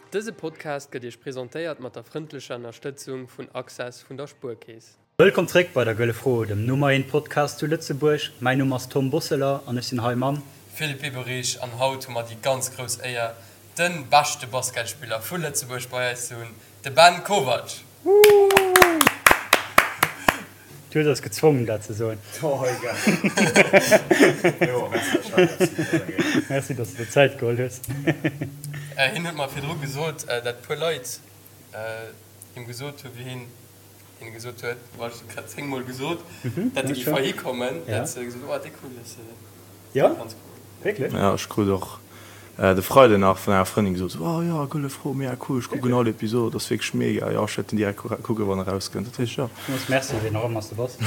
Dëse Podcast gëtt Iech presentéiert mat der frëndlecher Ënnerstëtzung vun Access vun der Spuerkeess. Wëllkomm zréck bei der Gëlle Fro, dem Nummer eent Podcast zu Lëtzebuerg. Mäin Numm ass Tom Bosseler an ech sinn hei mam. Philippe Biberich an haut hu mer déi ganz grouss Éier, de beschte Basketspiller vu Lëtzebuerg bei eis ze hunn, de Ben Kovac! Du hues eis gezwongen dat ze soen. Merci dass de der Zäit geholl hues. Hien huet mer virdru gesot, dat puer Leit him gesot hu wéi hien hinne gesot huet, bon ech hunn et grad 10 mol gesot, dat e géif heihi kommen, dat se gesot hunn, oh dee cool, dat ass ganz cool. Wierklech? Jo, ech krut och de Freiden nach vun enger Frëndin gesot, sou, oh jo, Gëlle Fro, mega cool, ech kucken all Episod, ass wierklech mega, jo, ech wäert den direkt kucken, wann e rauskënnt. Dat heescht, jo. Villmools Merci, wien och ëmmer s de bass.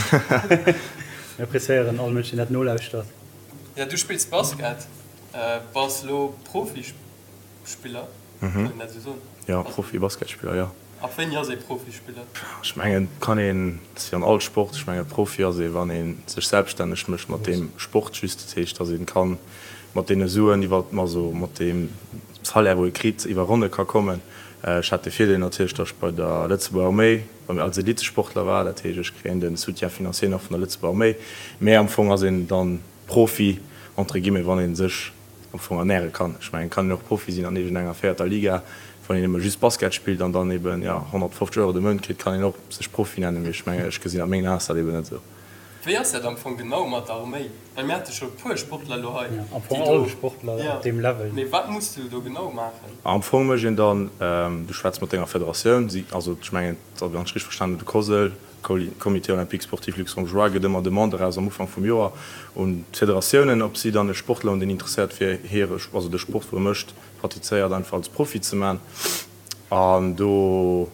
Mir appreciéieren all Mënsch, deen dat nolauschtert. Jo, du spills Basket, bass lo Profispiller, kann een dat esou soen? Jo, Profi-Basketspiller, jo. Ab wéini ass ee Profispiller? Ech mengen, et kann een, et ass wéi an all Sport, ech mengen, Profi ass ee wann ee sech selbststänneg mécht mat deem Sport just. Dat heescht, datt ee ka mat deene Suen iwwer, also mat deem Salaire wou ee kritt, iwwer Ronne ka kommen. Ech hat de Virdeel natierlech, datt ech bei der Lëtzebuerger Arméi als Elitesportler war. Dat heescht, ech kréien de Soutien financier nach vun der Lëtzebuerger Arméi. Mä am Fong ass een dann Profi entre guillemets, wann ee sech am Fong ernäre kann. Ech mengen, et kann een och Profi sinn an iergendenger véierter Liga, wann een nëmme just Basket spillt an dann eben, jo, 150 Euro de Mount kritt, kann een och sech Profi nennen, mee ech mengen, ech gesinn a mengen Aen ass dat eben net esou. Wéi ass dat am Fong genau mat der Arméi? Well mir hate scho e puer Sportler elo hei, Jo, am Fong all Sportler op deem Level. Mee wat muss du do genau maachen? Am Fong mécht een dann, du schwätz mat denger Federatioun, si, also ech mengen, wann ech richteg verstanen hunn, de COSL, Comité Olympique Sportif Luxembourgeois gëtt ëmmer Demande eraus am Ufank vum Joer un d'Federatiounen, ob si dann e Sportler hunn, deen interesséiert wier, hire, also de Sport, wou e mécht, pratizéiert, einfach als Profi ze man. An do,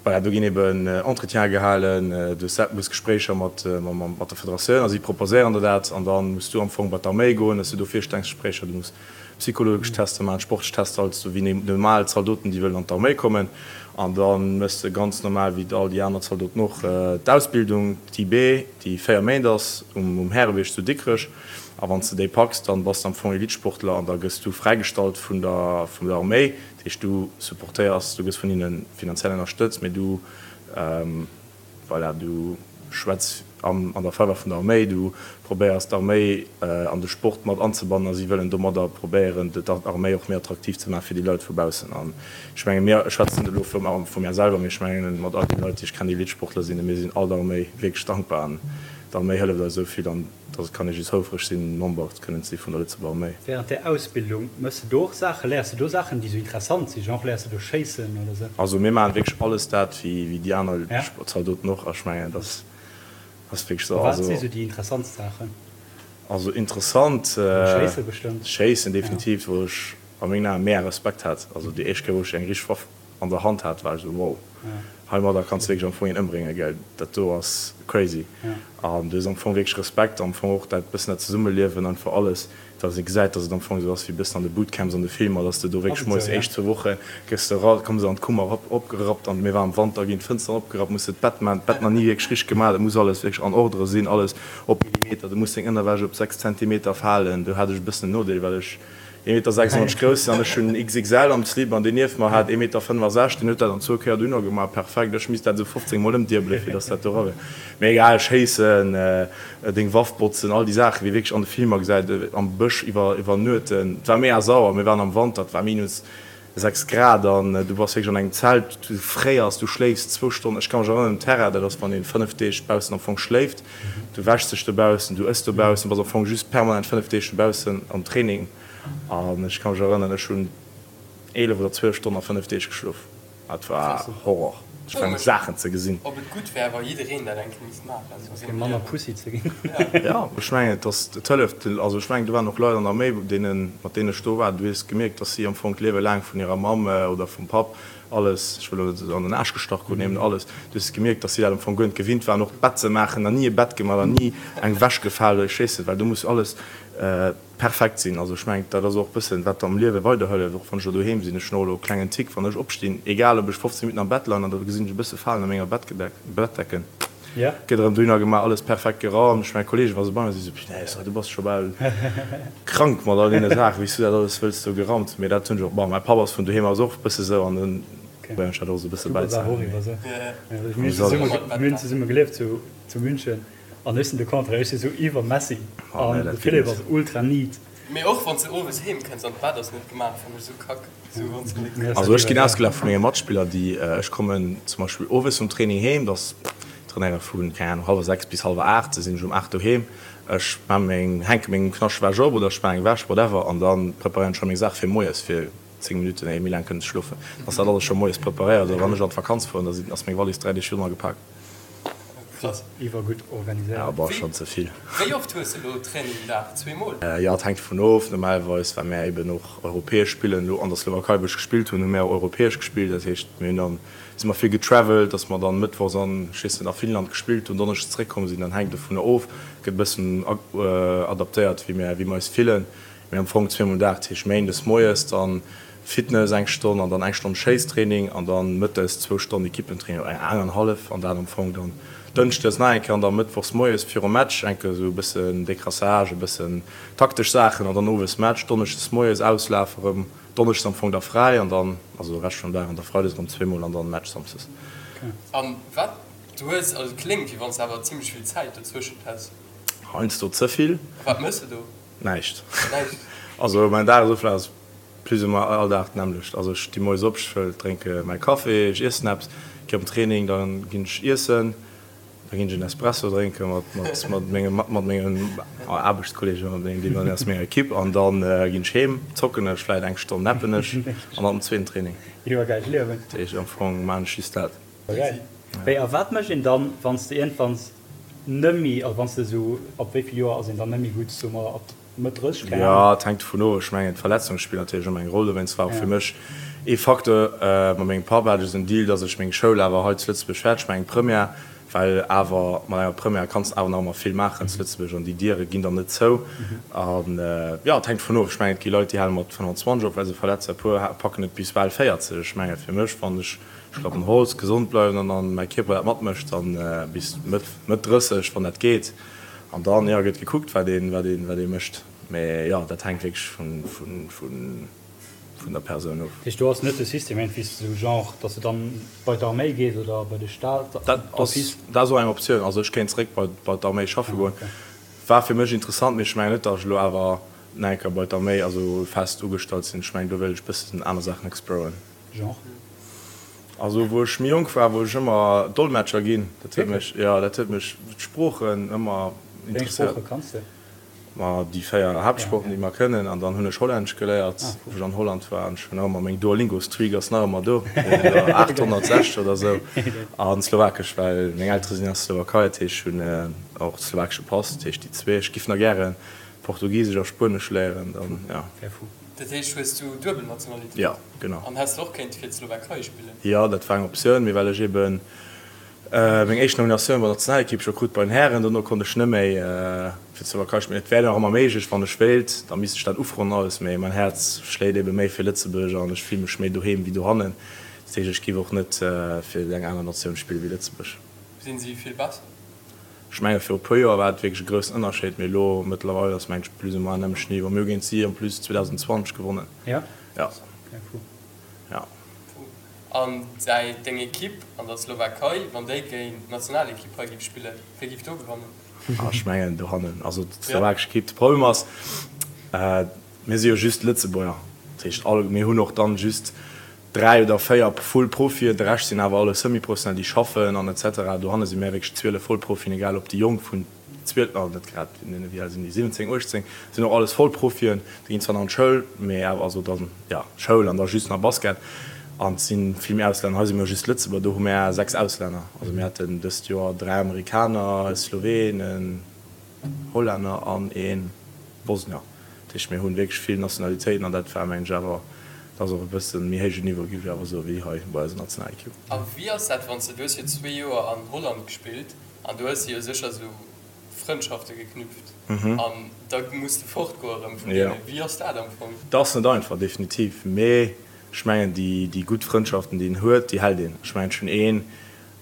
voilà, do ginn eben Entretiene gehalen, du hues Gespréicher mat mat der Federatioun a si proposéieren der dat. An da muss du am Fong bei d'Arméi goen, hues du do Virstellungsgespréicher, du muss Psychologesch Tester maachen, sportlech Tester, alles esou wéi normal Zaldoten, déi wëllen an d'Arméi kommen. An da méchs de ganz normal wéi all déi aner Zaldoten och d'Ausbildung, d'IB, déi 4 Méint ass, um Härebierg zu Dikrech. A wann s de déi packs, dann bass de am Fong Elitesportler an da gëss du fräigestallt vun der vun der Arméi. Dat heescht, du supportéiers, du gëss vun hinne finanziell ënnerstëtzt, mee du Voilà, du schwätz an der Faveur vun der Arméi, du probéiers d'Arméi an de Sport mat anzebannen a si wëllen domadder probéieren, d'Arméi och méi attraktiv ze maachen fir déi Leit vu baussen. An ech menge mir, ech schwätzen net elo vu mär selwer, mee ech mengen mat all deene Leit, déi ech kennen, déi Elitesportler sinn, mir sinn all der Arméi wierklech dankbar an d'Arméi hëlleft eis esou vill an Dass et kann ee just houfreg sinn, Member kënnen ze si vun der Lëtzebuerger Arméi. Während där Ausbildung, mëss de do och Saachen, léiers de do Saachen, déi sou interessant sinn, genre léiers de do schéissen oder sou? Also mir maachen wierklech alles dat wéi déi aner Zaldoten och a ech mengen dat ass wierklech sou. A wat si sou déi interessantst Saachen? Also interessant. Schéisse bestëmmt. Schéissen definitiv, wou ech a mengen Aen mega Respekt hat. Also déi éischt Kéier wou ech eng richteg Waff an der Hand hat, war ech esou wow, heimadder kanns de wierklech am Fong een ëmbréngen, gell, dat do ass crazy. An du hues am Fong wierklech Respekt, am Fong och dat bëssen dat Zesummeliewen, einfach alles, dass ee gesäit, dass et am Fong esou ass wéi e bëssen an de Bootcamps an de Filmer, dass de do wierklech moies déi éischt zwou Woche gëss de era, komme se an d'Kummer erop, opgerappt an mir waren am Wanter, ginn d'Fënsteren opgerappt, muss de d'Bett maachen, d'Bett nach ni wierklech richteg gemaach, et muss alles wierklech an Ordre sinn, alles op Millimeter, du muss deng Ënnerwäsch op 6 Zentimeter falen, do hat ech e bëssen en Nodeel, well ech. Ee Meter 96 grouss sinn an ech hunn XXL am Slip an deen nieft mer hat ee Meter 65, deen huet dat an zwou Kéier dohinner gemaach, perfekt. Ech misst dat esou 15 mol ëmdiebelen fir dass dat do era wier. Mee egal, schéissen, deng Waff botzen, all déi Saachen wéi wierklech an de Filmer gesäit, am Bësch iwwer iwwernuechten. Et war mega sauer, mir waren am Wanter, et war minus 6 Grad an du bass wierklech an engem Zelt, du fréiers, du schléifs zwou Stonnen. Ech ka mech erënneren, um Terrain, dat ass wann een 5 Deeg baussen am Fong schléift, du wäschs dech dobaussen, du ëss dobaussen, bass am Fong just permanent 5 Deeg dobaussen am Training. An ech ka mech erënneren, ech hunn 11 oder 12 Stonnen a 5 Deeg geschlof. Dat war Horror, ech mengen Saachen ze gesinn. Ob et gutt wär, wa jiddereen dat eng Kéier misst maachen, esou fir manner Pussy ze ginn. Jo, ech mengen et ass, et hëlleft. Also ech mengen do waren och Leit an der Arméi, deenen, mat deenen ech do war, du hues gemierkt, datt si am Fong d'Liewe laang vun hirer Mamm oder vum Papp alles, ech wëll elo net an den Aarsch gestach kruten, eben alles, du hues gemierkt, datt si dat am Fong guer net gewinnt waren, och d'Bett ze maachen, nach ni e Bett gemaach, nach ni eng Wäsch gefal oder ech weess net, well do muss alles perfekt sinn. Also ech mengen, dat ass och e bëssen, wat am Liewe weiderhëlleft, och wann ech elo doheem sinn. Ech hunn och elo e klengen Tick, wann ech opstinn, egal ob ech 15 Minutten am Bett leien an da gesinn ech e bësse Falen a menger Bettgedeck, Bettdecken. Gëtt erëm dohinner gemaach, alles perfekt geraumt. Ech, mäi Kollegen, wa se bei mir sinn, sou, Punaise, du bass scho bal krank mat all deene Saachen, wéi s du dat alles wëlls do geraumt hunn. Mee dat hunn ech och, bon, mäi Papp ass vun doheem aus och e bësse sou an dann probéieren ech dat och sou e bësse bäizehalen. Mir hunn zesumme gelieft zu München an ech sinn de Contraire, ech si sou iwwer messy an de Philippe ass ultra neat. Mee och wann s de owes heem kënns an d'Bett ass net gemaach, fannen ech sou kack. Sou wann s de net. Also ech ginn ausgelaacht vu menge Matspiller, déi, ech kommen zum Beispill owes vum Training heem, dass trainéiere vu, keng Ahnung, hallwer 6 bis hallwer 8, da sinn ech um 8 doheem, ech maan meng, hänke meng Knaschtwäsch op oder ech maan eng Wäsch, whatever, an da preparéieren ech scho meng Saach fir moies fir 10 Minutten, éier méi laang kënnen ze schlofen, dass dat alles scho moies preparéiert. Oder wann ech an d'Vakanz fueren, da sinn, ass meng Wallis 3 Deeg virdrun agepaakt. Krass. Iwwergutt organiséiert. Ja, boah, schon ze vill. Wéi oft hues de lo Training den Dag? Zweemol? Jo, et hänkt dovun of. Normalerweis, well mär eben och europäesch spillen, elo an der Slowakei, wou ech gespillt hunn, hu mär och europäesch gespillt. Dat heescht, mir hunn dann, si mer vill getravelt, datt mer dann mëttwochs an, ech weess net, a Finnland gespillt hunn, donneschdes zeréckkomm sinn. Dann hänkt dovunner of, gëtt e bëssen adaptéiert, wéi mär, wéi mer eis fillen. Mee am Fong zweemol den Dag, dat heescht méindes moies dann Fitness eng Stonn an dann eng Stonn Schéisstraining an dann mëttes zwou Stonnen Equippentraining oder eng an hallef an dat am Fong dann dënschdes nach eng Kéier an da mëttwochs moies virum Match eng Kéier esou e bëssen Décrassage, e bëssen taktesch Saachen an dann owes Match, donneschdes moies Auslaf erëm, donneschdes am Fong da fräi an dann also de Rescht vum Dag an da freides erëm zweemol an dann Match samsdes. An wat du hues, also et kléngt wéi wann s de awer zimmlech vill Zäit dozwëschent häss. Heiansdo ze vill. A wat méchs de do? Näischt. Also mäin Dagesoflaf ass plus ou moins all Dag d'nämmlecht. Also ech sti moies op, ech drénke mäi Café, ech iessen eppes, gi op den Training, da ginn ech iessen, da ginn ech en Espresso drénke mat mat menge mat mengen Aarbechtskolleegen, mat mengen deenen aus menger Ekipp an da ginn ech heem, zocken ech vläit eng Stonn, nappen ech an dann den zweeten Training. Iwwergäilt Liewen. Dat heescht am Fong maan ech just dat. Geil. Wéi a wat mécht een dann, wann s de iergendwanns Nëmmi, also wann s de esou, ab wéi vill Joer ass een dann nëmmi gutt, soe mer ab Mëtt 30, keng Ahnung? Jo, et hänkt dovun of. Ech mengen, d'Verletzunge spillen natierlech ëmmer eng Roll. Dowéinst war och fir mech ee Facteur, mat mengem Papp hat ech esou en Deal, datt ech meng Schoul awer hei zu Lëtzebuerg fäerdeg maachen, eng Première, well awer mat enger Première kanns de awer nach ëmmer vill maachen zu Lëtzebuerg an déi Diere ginn dann net zou. An jo, et hänkt dovun of. Ech mengen, et gi Leit, déi hale mat 25 op, well se verletzt sinn, e puer packen et bis bal 40. Ech menge fir mech, wann ech Ech klappen Holz, gesond bleiwen an dann mäi Kierper dat matmécht, dann bis Mëtt Mëtt 30 wann dat geet an dann jo gëtt gekuckt wat een wat een wat ee mécht, mee jo dat hänkt wierklech vun vun vun vun der Persoun of. Dat heescht do ass net de System iergendwéi sou genre dass de dann bei d'Arméi gees oder bei de Staat Dat ass dat ass och eng Optioun, also ech kéint zeréck bei bei d'Arméi schaffe goen, war fir mech interessant, mee ech mengen net dass ech elo awer nach eng Kéier bei d'Arméi also fest ugestallt sinn, ech mengen do wéilt ech bëssen aner Saachen exploren. Genre? Also wou ech méi jonk war, wollt ech ëmmer Dolmetscher ginn. Dat huet mech, jo, dat huet mech, d'Sproochen ëmmer Wéi eng interesséiert. Sprooche kanns de? Ma déi 4 Haaptsproochen, déi mer kënnen. An dann hunn ech Hollännesch geléiert, wou ech an Holland war. An ech hunn nach ëmmer meng Duolingo-Streak ass nach ëmmer do, 860 oder esou. An Slowakesch, well meng Eltere sinn aus der Slowakei, dat heescht ech hunn och slowakesche Pass. Dat heescht déi zwee. Ech giff nach gären Portugisesch a Spuenesch léieren, dann, jo. Wär fou. Dat heescht, hues du duebel Nationalitéit? Jo, genau. An häss de och kéinte fir d'Slowakei spillen? Jo, dat war eng Optioun, mee well ech eben meng éischt Nominatioun bei der Nationalekipp scho krut bei den Hären, dono konnt ech net méi fir d'Slowakei spillen. Et wär nach ëmmer méiglech, wann ech wéilt, da misst ech dat ufroen an alles, mee mäin Häerz schléit ebe méi fir Lëtzebuerg an ech fille mech méi doheem wéi dohannen. Dat heescht, ech giff och net fir eng aner Natioun spille wéi Lëtzebuerg. Sinn si vill besser? Ech menge viru puer Joer war et wierklech e groussen Ënnerscheed, mee elo mëttlerweil ass mengen ech plus ou moins nämmlecht Niveau. Mir hu géint si en plus 2020 gewonnen. Ja? Ja. Okay, fou. Ja. Fou. An däi, deng Ekipp an der Slowakei, wann déi géint d'Nationalekipp hei géif spillen, wie géif do gewannen? Ah, ech mengen dohannen, also d'slowakesch Ekipp. De Problem ass, mir si jo just Lëtzebuerger, dat heescht all, mir hunn och dann just 3 oder 4 Full Profien, de Rescht sinn awer alles Semi-Professionell, déi schaffen an etc. Dohanne si mär wierklech 12 Vollprofien, egal ob déi Jonk vun 12, ah net grad, wéi al sinn déi, 17, 18, sinn och alles Vollprofien, déi ginn zwar nach an d'Schoul, mee awer, also dann, jo, Schoul an da just nach Basket an et si vill méi Auslänner. Hei si mir just Lëtzebuerger, do hu mär 6 Auslänner, also mir haten dëst Joer 3 Amerikaner, e Sloween, en Hollänner an e Bosnier. Dat heescht, mir hunn wierklech vill Nationalitéiten an dat war, mengen ech, awer, dat ass och e bësse méi héijen Niveau, géif ech awer soen, wéi hei bei eiser Nationalekipp. A wéi ass dat, wann s de, du hues jo zwee Joer an Holland gespillt an du hues jo sécher esou Frëndschafte geknüpft an da muss de fortgoe erëm vun deenen. Wéi ass dat am Fong? Dat ass net einfach, definitiv, mee ech mengen, déi, déi gutt Frëndschaften, déi een huet, déi hält een. Ech mengen, ech hunn een.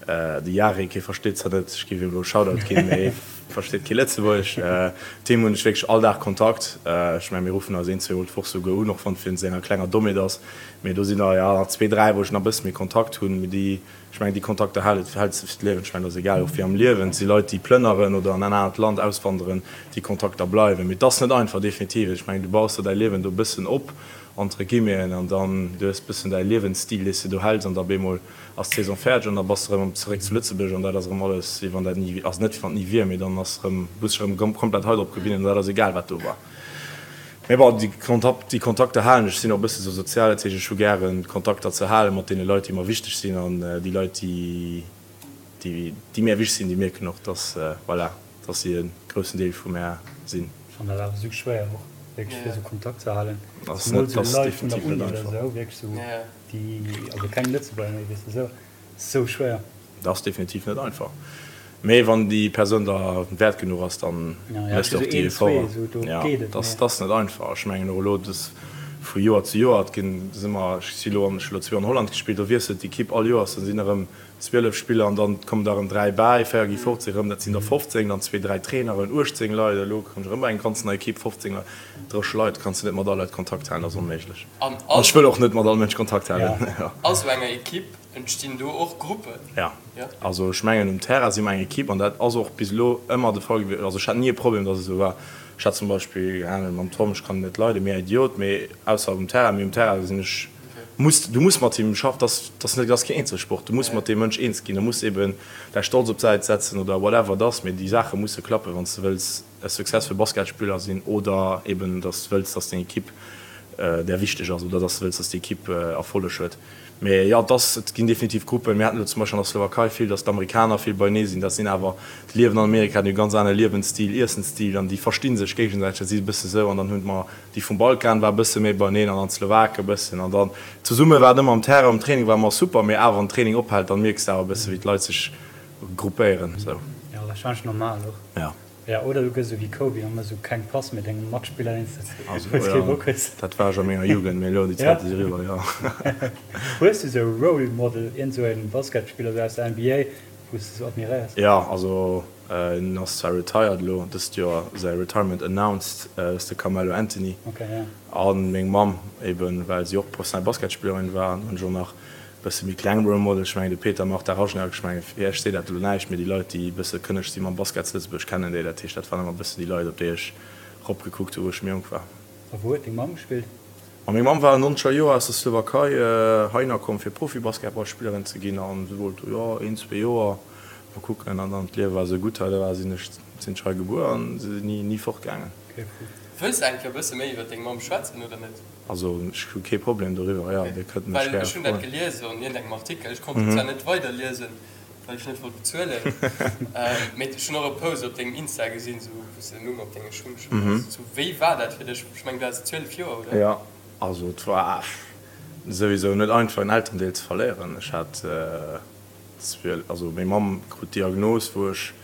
De Jarek, hie versteet zwar net, ech géif him elo e Shoutout ginn, mee hie versteet kee Lëtzebuergesch. Mat him hunn ech wierklech all Dag Kontakt. Ech mengen, mir ruffen eis een, zweemol d'Woch souguer un, och wann et wéinst enger klenger Dommheet ass. Mee do sinn der, jo, nach zwee, dräi, wou ech nach e bësse méi Kontakt hunn. Mee déi, ech mengen, déi Kontakter hält, häls de fir d'Liewen. Ech mengen, dat ass egal, och wéi am Liewen. Et si Leit, déi plënneren oder an en anert Land auswanderen, déi Kontakter bleiwen. Mee et ass net einfach, definitiv. Ech mengen, du baus der däi Liewen do e bëssen op, entre guillemeten, an dann, du hues e bëssen däi Liewensstil, dee s de do häls, an da op eemol ass d'Saison fäerdeg an da bass de erëm zeréck zu Lëtzebuerg an dat ass erëm alles wéi wann dat ni, also net wéi wann et ni wier, mee dann ass erëm, muss dech erëm komplett hei drop gewinnen an dat ass egal wat do war. Mee bon, déi Kontakt, déi Kontakter halen ech, sinn och e bësse sou sozial, dat heescht ech hu gären Kontakter ze hale mat deene Leit déi mer wichteg sinn an déi Leit déi, déi, déi mär wichteg sinn, déi mierken och dass, voilà, dass si e groussen Deel vu mär sinn. Ech fannen dat awer sou schwéier och wierklech fir sou Kontakt ze halen, zemol sou Leit vun der Uni oder sou, wierklech sou. Déi, also keng Lëtzebuerger méi, weess de, sou, sou schwéier. Dat ass definitiv net einfach. Mee wann déi Persoun der wäert genuch ass, dann méchs de och déi Efforten. Jo, dat ass net einfach. Ech mengen och elo, dass vu Joer zu Joer, et ginn, si mer, ech si elo an, ech hu elo zwee an Holland gespillt, do wiesselt d'Ekipp all Joers, da sinn erëm 12 Spiller an dann kommen der erëm 3 bäi, 4 gi fort, si erëm, dat sinn der 15, dann zwee, dräi Traineren, 18 Leit, elo kommt erëm eng ganz nei Ekipp, 15 Leit, 30 Leit, kanns de net mat all Leit Kontakt halen, dat ass onméiglech. An ech wëll och net mat all Mënsch Kontakt halen. A sou enger Ekipp entstinn do och Gruppen? Jo, also ech mengen um Terrain si mer eng Ekipp an dat ass och bis elo ëmmer de Fall gewiescht. Also ech hat ni e Problem, datt et esou war. Ech hat zum Beispill, keng Ahnung, mam Tom, ech kann en net leiden, mega Idiot, mee ausser um Terrain, mee um Terrain sinn ech, muss, du muss mat him schaffen, dat ass net, dat ass keen Eenzelsport, du muss mat deem Mënsch eens ginn, du muss eben däi Stolz op d'Säit setzen oder whatever et ass, mee déi Saache musse klappen, wann s de wëlls e successful Basketspiller sinn oder eben dass de wëlls, dass deng Ekipp där wichteg ass oder dass de wëlls, dass déi Ekipp Erfolleg huet. Mee jo, et ass, et ginn definitiv Gruppen. Mir haten elo zum Beispill an der Slowakei vill, dass d'Amerikaner vill beienee sinn. Dat sinn awer, déi liewen an Amerika, déi hu ganz anere Liewensstil, Iessensstil an déi versti sech géigesäiteg. Dat si e bësse sou. An dann hunn mer déi vum Balkan war e bësse méi beieneen an dann d'Slowake e bëssen. An dann zesumme war et ëmmer am Terrain, um Training war ëmmer super, mee awer wann den Training ophält, dann mierks de awer e bësse wéi d'Leit sech gruppéieren. Sou. Jo, warscheinlech normal och. Jo. Ja, oder du gëss esou wéi Kobe an mëss esou keng Pass méi dengem Matspiller deen s de Also, wou s kee Bock hues. Dat war ech a menger Jugend, mee elo déi Zäite si riwwer, jo. Hues du esou e Role Model, iergend esou en Basketspiller esou aus der NBA, wou s de esou admiréiers? Jo, also en ass zwar retired elo, dëst Joer säi Retirement announced, dat ass de Carmelo Anthony. Ok, ja. A meng Mamm eben, well si och professionell Basketspillerin war. An hunn ech och nach Bësse méi kleng Role Model, ech mengen de Peter Marta Rajnak, ech mengen fir iech seet dat elo näischt, mee déi Leit déi e bësse kënneg si mam Basket zu Lëtzebuerg kennen déi, dat heescht dat waren ëmmer e bëssen déi Leit op déi ech rop gekuckt hu wou ech méi jonk war. A wou huet deng Mamm gespillt? Ma meng Mamm war an nonzeger Joer aus der Slowakei heihinner komm fir Profi-Basketballspillerin ze ginn an si wollt jo een, zwee Joer mol kucken an dann d'Liewe war esou gutt hei, da war sinn ech sinn ech hei gebuer an si sinn ni ni fortgaangen. Wëlls de eng Kéier e bësse méi iwwer deng Mamm schwätzen oder net? Also ech hu kee Problem doriwwer, jo, Dir kënnt mech gäre froen. Well ech hunn dat gelies an iergendengem Artikel, ech konnt et zwar net weiderliesen, well ech net wollt bezuelen, mee ech hunn och e Post op dengem Insta gesinn, sou wou s de den Numm op denge Schung geschriwwen hues. Sou, wéi war dat fir dech? Ech mengen, du haas 12 Joer, oder? Jo, also et war souwisou net einfach en Elterendeel ze verléieren. Ech hat 12, also meng Mamm krut d'Diagnos wou ech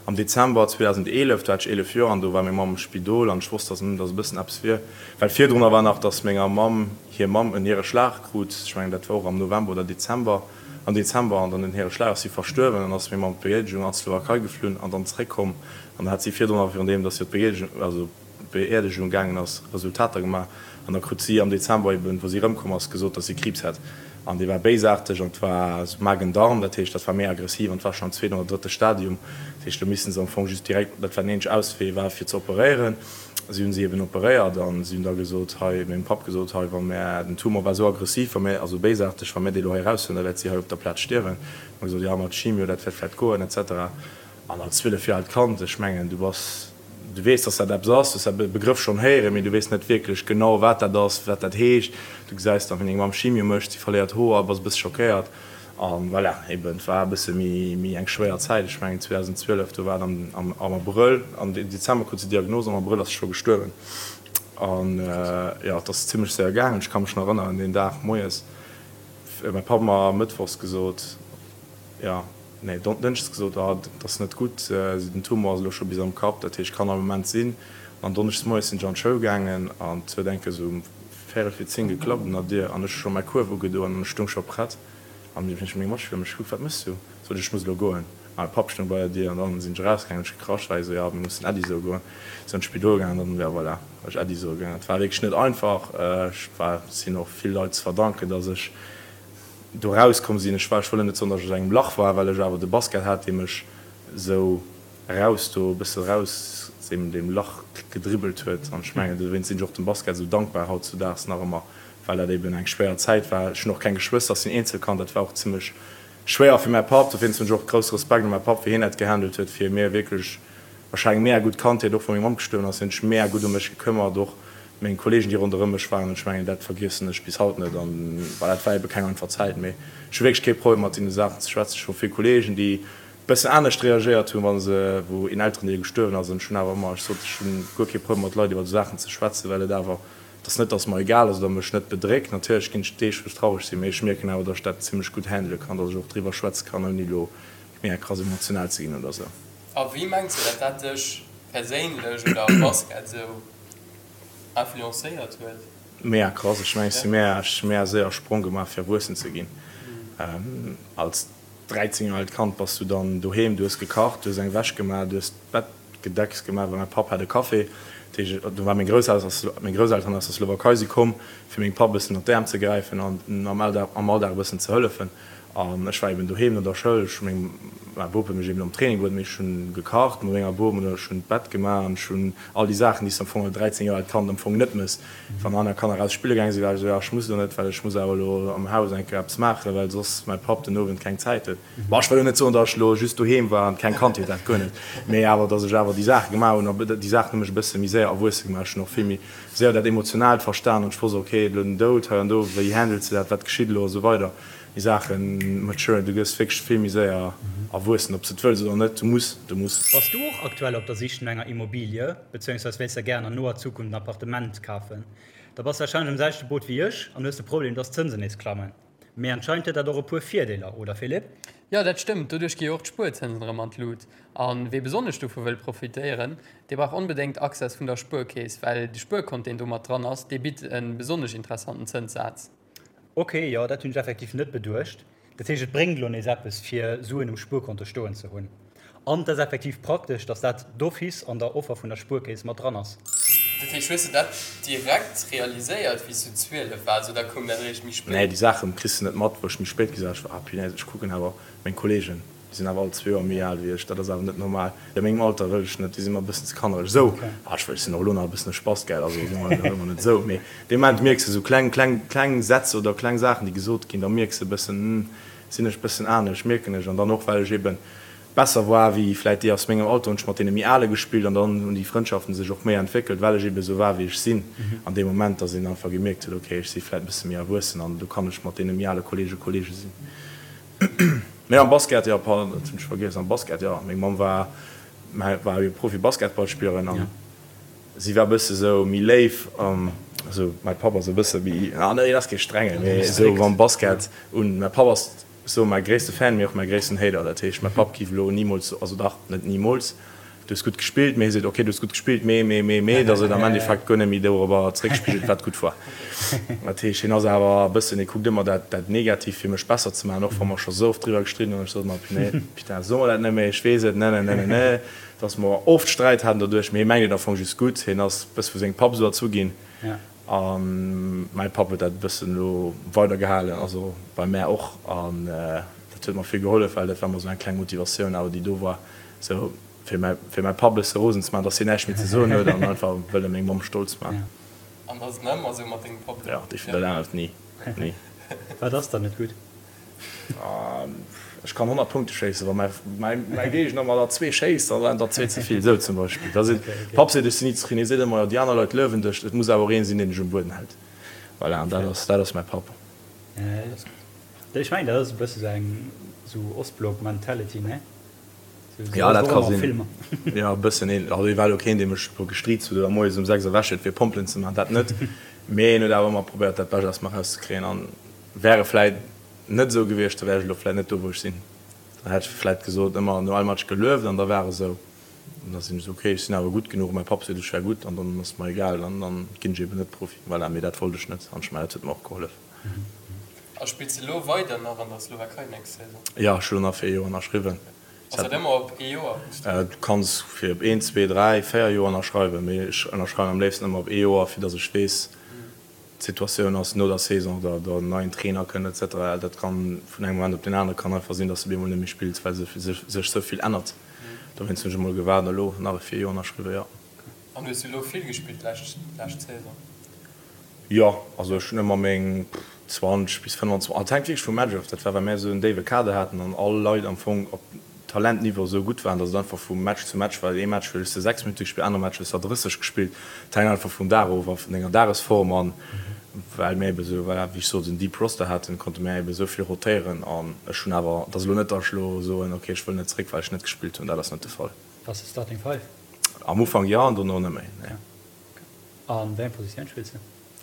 am Dezember 2011, do hat ech 11 Joer an do war meng Mamm am Spidol an ech wosst dass dass e bëssen eppes wier, well virdrunner war nach dass menger Mamm hir Mamm en Niereschlag krut, ech mengen dat war och am November oder Dezember, am Dezember an dann den Niereschlag ass si verstuerwen an ass meng Mamm op d'Beerdegung an d'Slowakei geflunn an dann zeréckkomm an da hat si virdrunner virun deem dass si op d'Beerdegung, also. Beerdegung gaangen ass, Resultater gemaach an da krut si am Dezember eben, wou si erëmkomm ass, gesot, dass si Kriibs hätt an dee war béisaarteg an et war Magen-Darm, dat heescht, dat war méi aggressiv an et war schonn am zweeten oder drëtte Stadium. Dat heescht, do misste se am Fong just direkt, dat war den eenzege Auswee war fir ze operéieren. Si hunn si eben operéiert an si hunn da gesot, hei, mengem Papp gesot, hei, wa mär, den Tumor war esou aggressiv, wa mär, also béisaarteg, wa mär dee lo hei eraushuelen, da wäert si hei op der Plaz stierwen. Hu mer gesot, jo, mat Chimio, dat wäert vläicht goen et cetera. An als 12 Joer aalt Kand, ech mengen, du bass, du weess, dass dat eppes ass, du hues dat Begrëff schonn héieren, mee du weess net wierklech genau, wat dat ass, wat dat heescht. Du gesäis dann, wéi deng Mamm Chimio mécht, si verléiert Hoer, bass e bësse schockéiert. A voilà, eben, et war e bësse méi, méi eng schwéier Zäit. Ech mengen, 2012, do war et am, am, am Abrëll, am Dezember krut si d'Diagnos, am Abrëll ass se scho gestuerwen. An jo, et ass zimmlech séier gaangen. Ech ka mech nach erënneren, deen Dag moies, mäi Papp mer mëttwochs gesot, jo, Nee, Dënschdes gesot, ah, dat ass net gutt, den Tumor ass elo scho bis am Kapp, dat heescht, kann all Moment sinn. An donneschdes moies sinn ech an d'Schoul gaangen an et huet eng Kéier esou um véierel vir 10 geklappt un der Dier an ech hu scho mäi Kuerf ugedoen an ech stoung scho prett. An du hunn ech meng Matschüler mech gekuckt, wat méchs du? Sot ech, ech muss elo goen. A mäi Papp stoung bei der Dier an dann sinn ech erausgaangen, hunn ech gekrasch, well hie sou, jo, mir mussen Äddi soe goen. Sinn an d'Spidol gaangen an dann, jo, voilà, war ech Äddi soe gaangen. Et war wierklech net einfach. Ech war, sinn och vill Leit ze verdanken, dass ech do erauskomm sinn. Ech war, ech wëll net soen, dass ech aus engem Lach war, well ech awer de Basket hat, dee mech esou eraus do, e bësse eraus deem, deem Lach gedribbelt huet. An ech mengen, dowéinst sinn ech och dem Basket esou dankbar hautzudaags nach ëmmer, well dat eben eng schwéier Zäit war. Ech hunn och keng Geschwëster, ech sinn Eenzelkand, dat war och zimmlech schwéier fir mäi Papp. Dowéinst hunn ech och grousse Respekt un mäi Papp, wéi hien dat gehandelt huet, fir mir wierklech wahrscheinlech mega gutt Kandheet, och wou meng Mamm gestuerwen ass, hien huet sech mega gutt ëm mech gekëmmert, och meng Kollegen, déi ronderëm mech waren. An ech mengen, dat vergiessen ech bis haut net. An voilà, dat war ebe keng einfach Zäit, mee ech hu wierklech kee Problem mat deene Saachen ze schwätzen. Ech hu vill Kollegen, déi bëssen anescht reagéiert hunn, wa se, wou een Elterendeel gestuerwen ass. An ech hunn awer ëmmer, ech sot, ech hunn guer kee Problem mat Leit iwwer esou Saachen ze schwätzen, well et awer Et ass net, dass et mer egal ass oder mech net bedréckt. Natierlech ginn et Deeg, wou ech traureg sinn, mee ech mierken awer, dass ech dat zimmlech gutt handele kann, dass ech och driwwer schwätze kann, ouni elo mega krass emotional ze ginn oder sou. A wéi mengs de, dat dat dech perséinlech oder am Basket sou influencéiert huet? Mega krass. Ech mengen, ech si mega, ech hu mega séier e Sprong gemaach, fir erwuessen ze ginn. Als 13 Joer aalt Kand bass du dann doheem, du hues gekacht, du hues eng Wäsch gemaach, du hues d'Bett Gedecks gemaach, well mäi Papp hat e Café. Dat heescht, do war meng Grousselteren aus der Slowakei si komm, fir mengem Papp e bëssen ënner d'Äerm ze gräifen an am Alldag am Alldag e bëssen ze hëllefen. An ech war eben doheem no der Schoul. Ech hu meng mäi Bop huet mech eben am Training bruet, mee ech hunn gekacht mat menger Bom oder ech hunn d'Bett gemaach an ech hunn all déi Saachen, déi s de am Fong als 13 Joer aalt Kand am Fong net mëss. Wann aner Kanner raus spille gaange sinn, war ech esou, jo, ech muss elo net, well ech muss awer elo am Haus eng Kéier eppes maachen, well soss mäi Papp den Owend keng Zäit huet. Bon, ech wëll elo net soen, datt ech elo just doheem war an keng Kandheet hat, guer net, mee awer datt ech awer déi Saache gemaach hunn a déi Saachen hu mech e bësse méi séier erwuesse gemaach. Ech hunn och vill méi séier dat Emotionaalt verstan an ech wosst, ok, elo den Doud hei an do, wéi handles de dat, wat geschitt elo a sou weider. Déi Saache maturen, du gëss wierklech vill méi séier erwuessen, ob s de et wëlls oder net, du muss, du muss. Bass du och aktuell op der Sich no enger Immobilie, bezéiungsweis wéilst der gären an noer Zukunft en Appartement kafen? Da bass warscheinlech am selwechte Boot wéi ech an hues de Problem, dass d'Zënsen nees klammen. Mee anscheinend huet dat och e puer Virdeeler, oder Philippe? Jo, dat stëmmt. Doduerch gi jo och d'Spuerzënsen erëm an d'Lut. A wee besonnesch dovu wëll profitéieren, dee brauch onbedéngt Access vun der Spuerkeess, well de Spuerkont, deen do mat dran ass, dee bitt e besonnesch interessanten Zënssaz. Ok, jo, dat hunn ech effektiv net beduecht. Dat heescht, et bréngt elo nees eppes, fir Suen um Spuerkonto stoen ze hunn. An et ass effektiv praktesch, dass dat d'office an der Offer vun der Spuerkeess mat dran ass. Dat heescht, hues de dat direkt realiséiert wéi s du 12 waars oder koum dat eréischt méi spéit? Nee, déi Saachen kriss de net mat. Wou ech méi spéit gesat ech war, ah punaise, ech kucken awer meng Kollegen, déi sinn awer all zwee Joer méi al wéi ech, dat ass awer net normal. A mengem Alter wëll ech net, déi si mer e bëssen ze kannereg esou. Ah, ech wëll, ech sinn och elo nach e bëssen e Spast, gell, also soe mer elo net esou, mee dee Moment mierks de esou kleng, kleng, kleng Sätz oder kleng Saachen, déi gesot ginn, da mierks de e bëssen, hm, sinn ech e bëssen anescht, mierken ech. An dann och, well ech eben besser war wéi vläit déi aus mengem Alter, hunn ech mat deene méi Ale gespillt an dann hunn déi Frëndschaften sech och méi entwéckelt, well ech ebe sou war wéi ech sinn an deem Moment, dass een einfach gemierkt huet, okay, ech si vläit e bësse méi erwuessen an do kann ech mat deene méi ale Kollege Kollege sinn. Mee am Basket, jo, pardon, dat hunn ech vergiess, am Basket, jo, meng Mamm war war jo Profi-Basketballspillerin an si war e bësse sou méi léif, also mäi Papp ass e bësse méi, ah nee, hien ass kee Strengen, mee esou am Basket un, mäi Papp ass Sou mäi gréisste Fan, mee och mäi gréissten Hater. Dat heescht, mäi Papp giff elo nimools, also dach, net nimools, du hues gutt gespillt, mee hie seet, ok, du hues gutt gespillt, mee, mee, mee, mee, dass et am Endeffekt guer net méi dorobber zeréckspigelt, wat gutt war. Dat heescht, hien ass awer e bëssen, hie kuckt ëmmer dat, dat Negativt, fir mech besser ze maachen, och wa mer scho sou oft driwwer gestridden hunn. Ech sot ëmmer, Punaise, putain, so mer dat net méi, ech weess et, ne, ne, ne, ne, ne, dass mer oft Sträit haten doduerch, mee hie mengt et am Fong just gutt. Hien ass e bësse vu sengem Papp esou erzu ginn. A mäi Papp huet dat e bëssen elo weider gehalen, also bei mär och. An dat huet mer vill gehollef, well dat war emmer esou eng kleng Motivatioun awer, déi do war, esou fir mäi, fir mäi Papp e bësse rosen ze maachen, dass hien näischt méi ze soen huet an einfach wëlle meng Mamm stolz maachen. An ass et nach ëmmer esou mat dengem Papp elo? Jo, definitiv, dat ännert ni, ni. Wat ass dann net gutt? Ech kann 100 Punkte schéissen, wa mäi Géigner mer der zwee schéisst, da waren der zwee ze vill, esou zum Beispill. Da seet Papp seet, ech sinn ni zefridden. Hie seet ëmmer, jo déi aner Leit luewen dech, et muss awer och een sinn, deen dech um Bueden hält. Voilà, an dat ass, dat ass mäi Papp. Ech mengen, dat ass e bësse sou eng sou Ostblock-Mentality, ne? Jo, dat ka sinn. Jo, e bëssen een. Also hie war elo keen, dee mech elo gestriizt huet oder moies um 6 erwächt huet, fir Pompelen ze maachen, dat net. Mee hien huet awer ëmmer probéiert, dat Bescht aus mer erauszekréien. An wär e vläit net esou gewiescht, da wär ech elo vläit net do, wou ech sinn. Dann hätt ech vläit gesot, ëmmer no all Match gelueft an da war esou. An da sinn ech esou, okay, ech sinn awer gutt genuch, mäi Papp seet, ech wär gutt an dann ass et mer egal, dann dann ginn ech eben net Profi. Voilà, mee dat wollt ech net an ech mengen, dat huet mer och gehollef. A spills de elo weider nach an der Slowakei nächst Saison? Jo, ech hu elo nach fir ee Joer ënnerschriwwen. Ass dat ëmmer op ee Joer? Du kanns fir op een, zwee, dräi, véier Joer ënnerschreiwen, mee ech ënnerschreiwen am léifsten ëmmer op ee Joer, fir datt ech weess, d'Situatioun ass no der Saison, oder der neien Trainer kënnt et cetera. Dat kann vun engem Moment op deen anere kann einfach sinn, datt s de op eemol net méi spills, well sech sou vill ännert. Dowéinst hunn ech emol gewaart an elo nach e fir ee Joer ënnerschriwwen, jo. An hues du elo vill gespillt d'lescht Saison? Jo, also ech hunn ëmmer meng 20 bis 25, et hänkt wierklech vum Match of, dat war well mär esou en déiwe Kader haten an all Leit am Fong op Talentniveau esou gutt waren, datt et einfach vu Match zu Match war. Ee Match hues de 6 Minutte gespillt, anere Match hues der 30 gespillt. Et hänkt einfach vum Dag of a vun denger Dagesform an well mär ebe esou, voilà, wéi ech sot, en deep Roster haten, konnte mär ebe esou vill rotéieren an ech hunn awer, et ass elo net, datt ech elo soen, ok, ech wëll net zeréck well ech net gespillt hunn, dat ass net de Fall. Bass de Starting Five? Am Ufank jo an dono net méi, nee. An wéi eng Positioun spills de?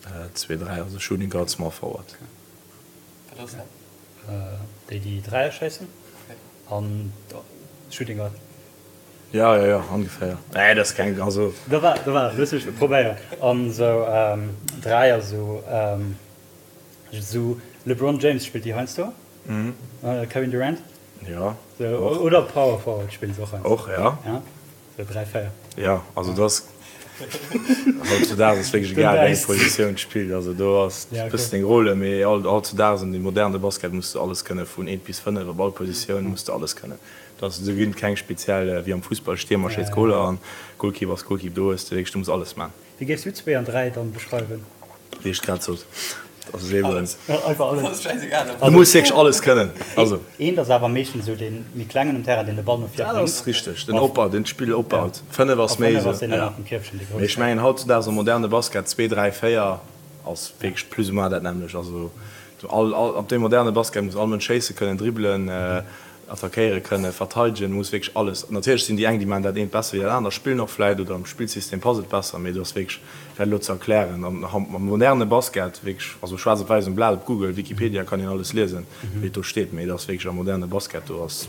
2, 3, also Shooting Guard, Small Forward. Wat ass dat? Déi déi Dräier schéissen an Shooting Guard. Jo, jo, jo, ongeféier. Nee, dat ass keng, also. Do war, do war, looss mech probéieren. An esou Dräier, esou, esou LeBron James spillt déi heiansdo, Kevin Durant. Jo. Sou, oder Power Forward spillen se och heiansdo. Och, jo. Ja. Sou 3, 4. Jo, also do ass hautzudaags ass wierklech egal wéi eng Positioun spillt, also do ass e bëssen deng Rôle, mee hautzudaags an dem moderne Basket muss de alles kënne vun 1 bis 5, op all Positioun muss de alles kënnen. Do ass, do ginn et keng speziell wéi am Fussball, Stiermer schéisst Goler an Goalkeeper ass Goalkeeper, do hues de wierklech, du muss alles man. Wéi géifs du 2 an 3 dann beschreiwen? Wéi ech grad sot, dat ass eben. Einfach alles. Du muss wierklech alles kënnen. Also. Eent ass awer meeschtens esou dee méi klengen um Terrain, deen de Ball no vir bréngt. Dat ass richteg, den Opbau, deen d'Spill opbaut. 5 ass méi esou. Ja. Mee ech mengen hautzudaags am moderne Basket 2, 3, 4 ass wierklech plus ou moins dat nämmlecht. Also all, all, op deem moderne Basket muss all Mënsch schéisse kënnen, dribbelen, Attackéiere kënnen, verteidegen, muss wierklech alles. Natierlech sinn déi eng, déi maachen dat eent besser wéi dat anert, spillen och vläit oder am Spillsystem passt et besser, mee do ass wierklech, fir dat elo ze erklären, am moderne Basket wierklech, also schwaarz op wäiss um Blat, op Google, Wikipedia kann een alles liesen, wéi et do steet, mee et ass wierklech am moderne Basket, do ass,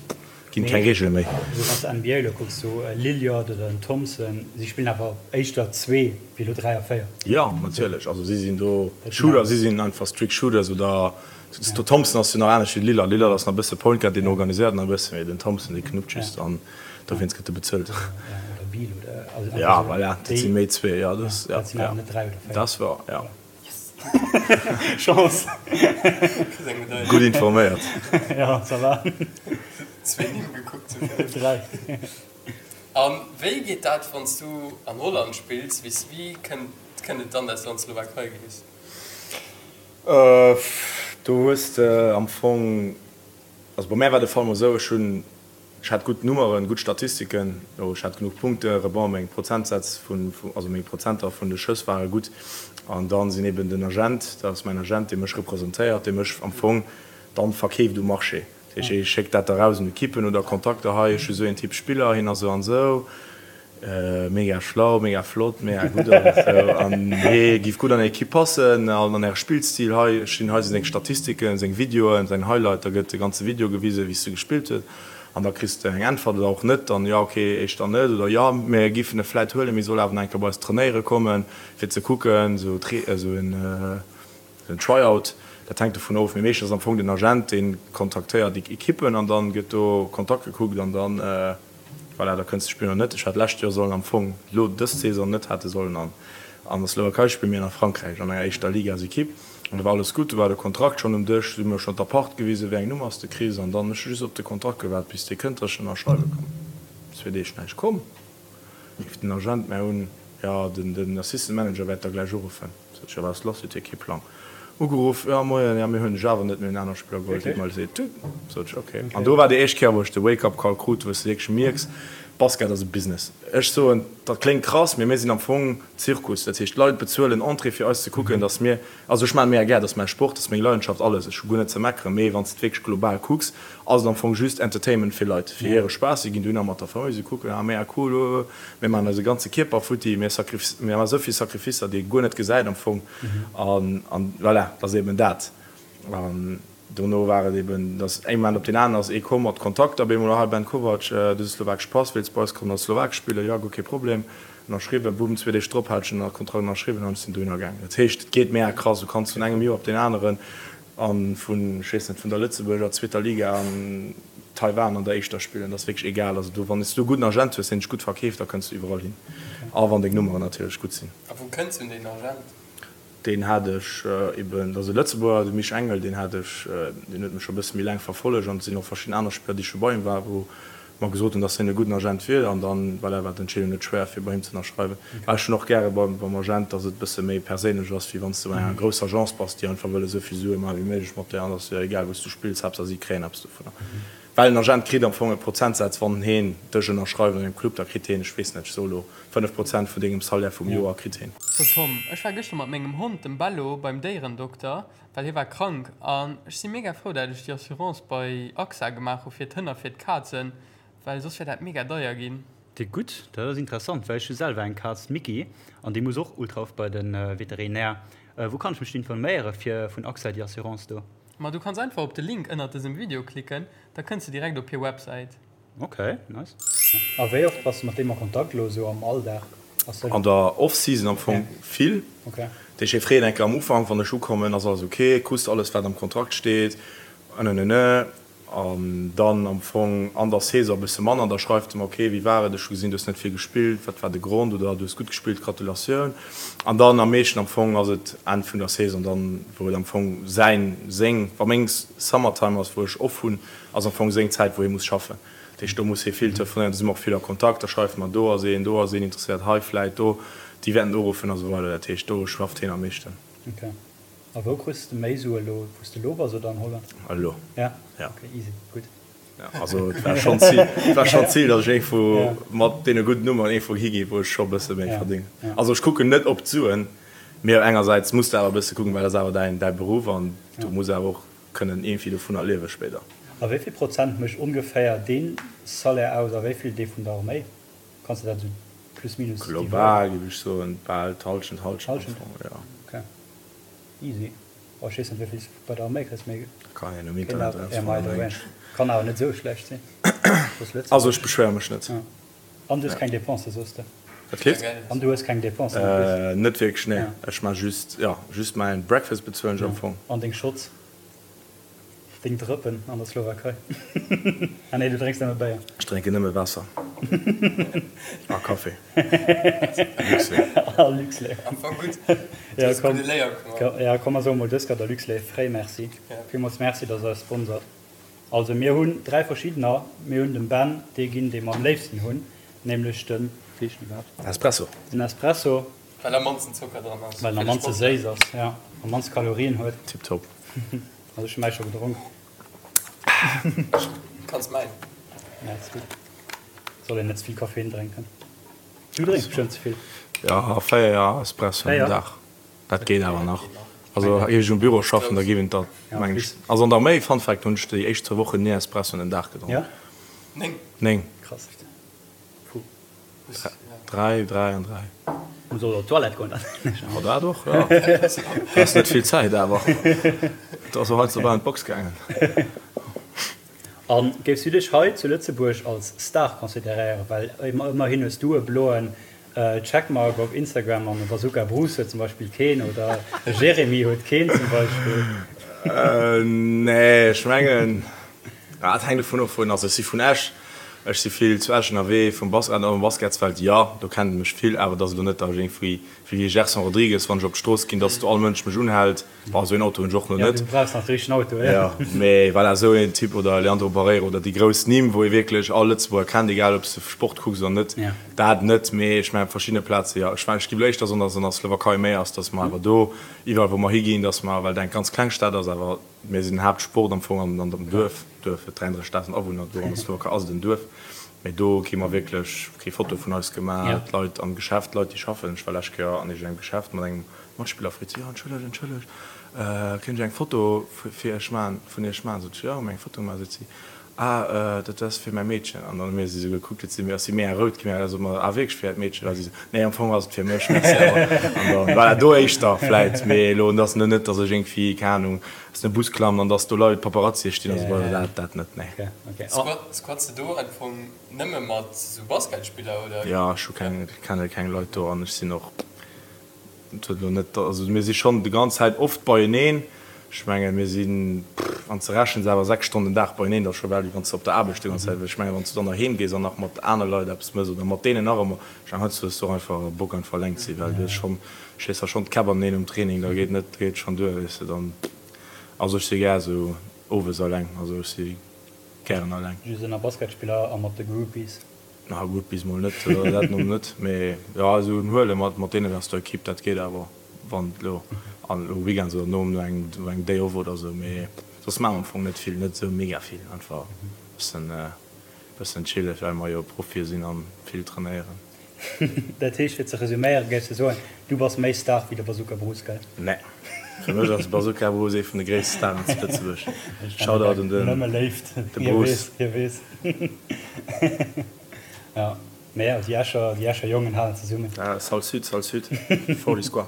ginn keng Reegele méi. Also wann s de NBA elo kucks, sou e Lillard oder en Thompson, si spillen awer éischter zwee wéi elo 3 a 4. Jo, natierlech, also si sinn do Shooter, si sinn einfach strict Shooters oder Den Thompson ass jo nach anescht wéi de Lillard. Lillard ass nach e bësse Point Guard, deen organiséiert nach e bësse, mee den Thompson dee knuppt just an dowéinst gëtt e bezuelt. Ja, voilà, dat si méi zwee, jo, dat ja, ja, dat ass wouer, ja. Chance. Gutt informéiert. Ja, ça va. Zwee Nimm gekuckt zu vill. Dräi. A wéi geet dat, wann s du an Holland spills? Wéi kënnt et dann, dass du an d'Slowakei gees? Do hues de am Fong, also bei mär war de Fall mol esou, ech hunn, ech hat gutt Nummeren, gutt Statistiken, jo ech hat genuch Punkte, Rebond, meng Prozentsätz vun, also meng Prozenter vun de Schëss ware gutt. An dann sinn eben den Agent, dat ass mäin Agent, dee mech representéiert, dee mech am Fong dann verkeeft um Marché. Dat heescht, hie schéckt dat da raus un Ekippen oder Kontakter, hei ech hu sou een Typ Spiller, hien ass esou an esou. Mega schlau, mega flott, mega gutt alles esou an hee giff gutt an är Equipe passen an an äre Spillstil. Hei stinn, hei si seng Statistiken, seng Videoen, säin Highlight, da gëtt de ganze Video gewisen, wéi s de gespillt huet an da kriss de eng Äntwert oder och net, dann jo ok, éischter net oder jo mir giffen e vläit huelen, mee soll awer nach eng Kéier bei eis trainéiere kommen fir ze kucken, esou esou en en Try-out. Dat hänkt dovun of, mee meeschtens ass am Fong den Agent dee kontaktéiert déi Equippen an dann gëtt do Kontakt gekuckt an dann. Voilà, da kënns de spillen oder net. Ech hat lescht Joer sollen am Fong, lo dës Saison net hätte sollen an an der Slowakei spillen, mee an a Frankräich an enger éischter Ligasekipp. An do war alles gutt, do war de Kontrakt schonn um Dësch, si hu mir schonn d'Appart gewisen, wéi eng Nummer s de kriss. An dann ech hu just op de Kontrakt gewaart, bis dee kënnt, dass ech ënnerschreiwe kann. Zwee Deeg näischt komm, rifft den Agent mär un, jo, den den Assistant Manager wäert der gläich uruffen. Sot ech, jo, wat ass lass, huet hie kee Plang. Ugeruff, jo moien, jo mir hunn dech awer net, mir hunn aner Spiller geholl, deet mer leed. Sot ech, ok. An do war déi éischt Kéier wou ech de Wake up Call krut, wou s de wierklech mierks, Basket ass e Business. Ech soen, dat kléngt krass, mee mir sinn am Fong Zirkus. Dat heescht, d'Leit bezuelen Entrée fir eis ze kucken, datt mir, also ech maachen mega gär, dat ass mäi Sport, dat ass meng Leidenschaft, alles, ech hu guer net ze meckeren, mee wann s de et wierklech global kucks, ass et am Fong just Entertainment fir Leit, fir hire Spaass. Si ginn dohinner mat der Famill, si kucken, ah mega cool, oh, mir maachen eise ganze Kierper futti, mir mir maachen esou vill Sacrificer, déi ee guer net gesäit am Fong. An, an voilà, dat ass eben dat. An dono war et eben, dass ee Moment op deen aneren ass ee komm mat Kontakter, op eemol, ah Ben Kovac, du hues e slowakesch Pass, wéilts bei eis kommen a Slowakesch spillen? Jo, guer kee Problem. Ënnerschriwwen, bumm, zwee Deeg drop hat ech den Kontrakt ënnerschriwwen an ech sinn dohinner gaangen. Dat heescht, et geet mega krass, du kanns vun engem Joer op deen aneren. A vun, ech weess net, vun der Lëtzebuerger zweeter Liga an Taiwan an der éischter spillen. Dat ass wierklech egal. Also do, wann s du e gudden Agent hues, deen dech gutt verkeeft, da kënns du iwwerall hin. A wann deng Nummeren natierlech gutt sinn. A wou kënns du un deen Agent? Deen hat ech eben, dat ass e Lëtzebuerger, de Mich Engel, deen hat ech, deen huet mech scho e bësse méi laang verfollegt an et sinn och verschidden aner Spiller, déi scho bei him waren, wou mer gesot hunn, dass hien e gudden Agent wier an dann, voilà, war d'Entscheedung net schwéier fir bei him ze ënnerschreiwen. Well ech hunn och gäre beim beim Agent, dass et e bësse méi perséinlech ass, wéi wann s de bei enger grousser Agence bass, déi einfach wëll esou vill Sue maache wéi méiglech mat der an et ass jo egal wou s du spills, Haaptsaach si kréien eppes dovunner. Well en Agent kritt am Fong e Prozentsaz, wann heen dech ënnerschreift an engem Club, da kritt heen, ech weess net, ech soe lo 5 Prozent vun dengem Salaire vum Joer kritt heen. So Tom, ech war gëschter mat mengem Hond, dem Bello, beim Déierendokter, well hie war krank an ech si mega frou dat ech déi Assurance bei AXA gemaach hu fir d'Hënn a fir d'Kazen, well soss wär dat mega deier ginn. Déi gutt, dat ass interessant, well ech hu selwer eng Kaz, d'Micky, an déi muss och ultra oft bei de Veterinär. Wou kann ech mech do informéiere fir vun AXA déi Assurance do? Ma du kanns einfach op de Link ënnert dësem Video klicken, da kënns de direkt op hir Websäit. Ok, nice. A wéi oft bass de mat deem a Kontakt elo esou am Alldag? Ass dat. An der Off-Season am Fong vill. Ok. Dat heescht, hie freet eng Kéier am Ufank, wann ech ukommen, ass alles ok, krus de alles wat am Kontrakt steet, ënnenene. An dann am Fong an der Saison e bësse manner, da schreift e mer, ok, wéi war et, ech hu gesinn, du hues net vill gespillt, wat war de Grond, oder du hues gutt gespillt, Gratulatioun. An dann am meeschten am Fong ass et Enn vun der Saison dann, wou et am Fong säin, seng, wa meng Summertime ass, wou ech off hunn, ass am Fong seng Zäit, wou hie muss schaffen. Dat heescht, do muss hie vill telefonéieren, do si mer och vill a Kontakt, da schreift mer, do ass een, do ass een interesséiert, hei vläit, do, déi wäerten uruffen a sou weider. Dat heescht, do schafft hien am meeschten. Ok. A wou kriss de méi Sue elo, wou s de elo bass oder an Holland? Elo. Ja? Ja. Ok, easy, gutt. Ja, also et war schonn d'Zil, et war schonn d'Zil, datt ech iergendwou mat deene gudden Nummeren iergendwou higinn, wou ech scho e bësse méi verdéngen. Also ech kucken net op d'Suen, mee engersäits muss de awer e bësse kucken, well dat ass awer däin, däi Beruff an du muss awer och kënnen iergendwéi dovunner liewe spéider. A wéi vill Prozent mécht ongeféier dee Salaire aus a wéi vill dee vun der Arméi? Kanns de dat esou plus minus dividéieren? Global géif ech soen, bal d'Hallschent, Hallschent am Fong, jo. Ok, easy. Oh, ech weess net wéi vill s de bei der Arméi kriss, mee Kann een um Internet erausfannen, mengen ech. Kann awer net esou schlecht sinn. Also ech beschwéiere mech net. An du hues keng Dépensen, soos de? Wat kritt? An du hues keng Dépensen en plus? Net wierklech, nee. Ech maa just, jo, just mäin Breakfast bezuelen ech am Fong. An deng Shots? Deng Drëppen an der Slowakei? Ah nee, du drénks nëmme Béier. Ech drénken nëmme Waasser a Café. Luxlait. A Luxlait. Am Fong gutt. Du hues gudde Léier gemaach. Ja, komm, mer soe mol dës Kéier der Luxlait fréi Merci. Villmools Merci, dass der eis sponsert. Also mir hunn 3 verschiddener. Mir hunn dem Ben dee ginn, dee mer am léifsten hunn, nämlech den, wéi heescht den iwwerhaapt? Espresso. Den Espresso. Well am mannsten Zocker dran ass. Well en am mannste séiss ass, jo, am mannste Kalorien huet. Tiptop. Also ech hu mäi scho gedronk. Kanns mäin. Nee, ass gutt. Soll een net ze vill Koffein drénken. Du drénks bestëmmt ze vill. Jo, 4 Espresso am Dag. Dat geet awer nach. Also géif ech um Büro schaffen, da géif een dat mengen ech. Also an der Arméi, Fun Fact, hunn ech déi éischt zwou Wochen ni Espressoen den Dag gedronk. Ja? 9. 9. Krass. Puh. Dräi, dräi an dräi. Muss och op d'Toilette goen dann. Jo, dat och, jo. Du has net vill Zäit awer. Du ass och heiansdo bal an d'Box gaangen. A géifs du dech hei zu Lëtzebuerg als Star consideréieren? Well ëmmerhin hues du e bloen Checkmark op Instagram an e Bazooka Bruce huet zum Beispill keen oder e Jeremy huet keen zum Beispill. Nee, ech mengen, et hänkt dovun of wou. Also ech si vun Esch, ech si vill zu Esch ënnerwee, vum Bas, an am Basketsfeld, jo, do kennt ee mech vill, awer et ass elo net, datt ech iergendwéi wéi e Gerson Rodrigues, wann ech op d'Strooss ginn, datt do all Mënsch mech unhält. Bon, esou een Auto hunn ech och nach net. Ja, du brauchs nach de richtegen Auto, ja. Ja, mee voilà, esou een Typ oder Leandro Barreiro oder déi grouss Nimm, wou ee wierklech all Lëtzebuerger kennt, egal ob s de Sport kucks oder net, dat net. Mee ech mengen, op verschiddene Plaze jo. Ech mengen, ech géif elo éischter soen, datt et an der Slowakei méi ass, datt mer awer do, iwwerall wou mer higinn, datt mer, well et eng ganz kleng Stad ass, awer mir sinn den Haaptsport am Fong an dem Duerf, Duerf huet 33.000 Awunner, do an der Slowakei ass et en Duerf, mee do kri mer wierklech kee Foto vun eis gemaach, d'Leit am Geschäft, d'Leit déi schaffen, ech war lescht Kéier an iergendengem Geschäft mat engem Matspiller freet si, Jo, entschëllegt, entschëllegt, kéint ech eng Foto fir iech maachen, vun iech maachen? Sot ech, Jo, hu mir eng Foto gemaach. Seet si, Ah, dat ass fir mäi Meedchen. An dann hu mir si sou gekuckt, huet si mir, ass si mega rout ginn, da sot mer, Ah, wierklech fir äert Meedchen? A si sou, Nee, am Fong ass et fir mech, merci awer. An dann, voilà, do éischter vläit, mee elo, et ass elo net, datt ech iergendwéi, keng Anung, aus dem Bus klammen an datt do Leit, Paparazzie stinn a sou weider, dat, dat net, nee. Squats de do am Fong nëmme mat sou Basketspiller, oder? Jo, ech hu keng, kenne keng Leit do an ech sinn och. Et huet elo net, also mir si schonn déi ganz Zäit oft beieneen. Ech mengen, mir sinn, wann s de rechens, awer 6 Stonnen den Dag beieneen, dat ass scho bal wéi wann s de op der Aarbecht déi ganz Zäit wiers. Ech mengen, wann s du dann nach heem gees an nach mat aner Leit eppes mëss oder mat deenen nach ëmmer, ech mengen, heiansdo hues du och einfach Bock einfach eleng ze sinn, well du hues schonn, schléis der schonn d'Käpp aneneen um Training, da geet net, da geet schonn duer, weess de, dann, also ech si gär esou owes eleng, also ech si gären eleng. Just ënner Basketspiller a mat de Groupies. Na Groupies mol net, dat mol net, mee jo, esou en Huele mat mat deenen aus der Equipe, dat geet awer. Wann elo an elo Weekends oder nom no engem no engem Day off oder sou, mee soss maache mer am Fong net vill, net sou mega vill, einfach bëssen bëssen chillen, well mer jo Profie sinn an vill trainéieren. Dat heescht, fir ze resuméieren, géifs de soen, du bass méi Star wéi de Bazooka Bruce, gell? Nee, fir mech ass de Bazooka Bruce ee vun de gréisste Staren zu Lëtzebuerg. Shoutout un den Nëmme Léift, de Bruce. Hie weess, hie weess. Ja. Mee jo, déi Escher, déi Escher Jongen halen zesummen. Ah, Salle Sud, Salle Sud, Forly Square.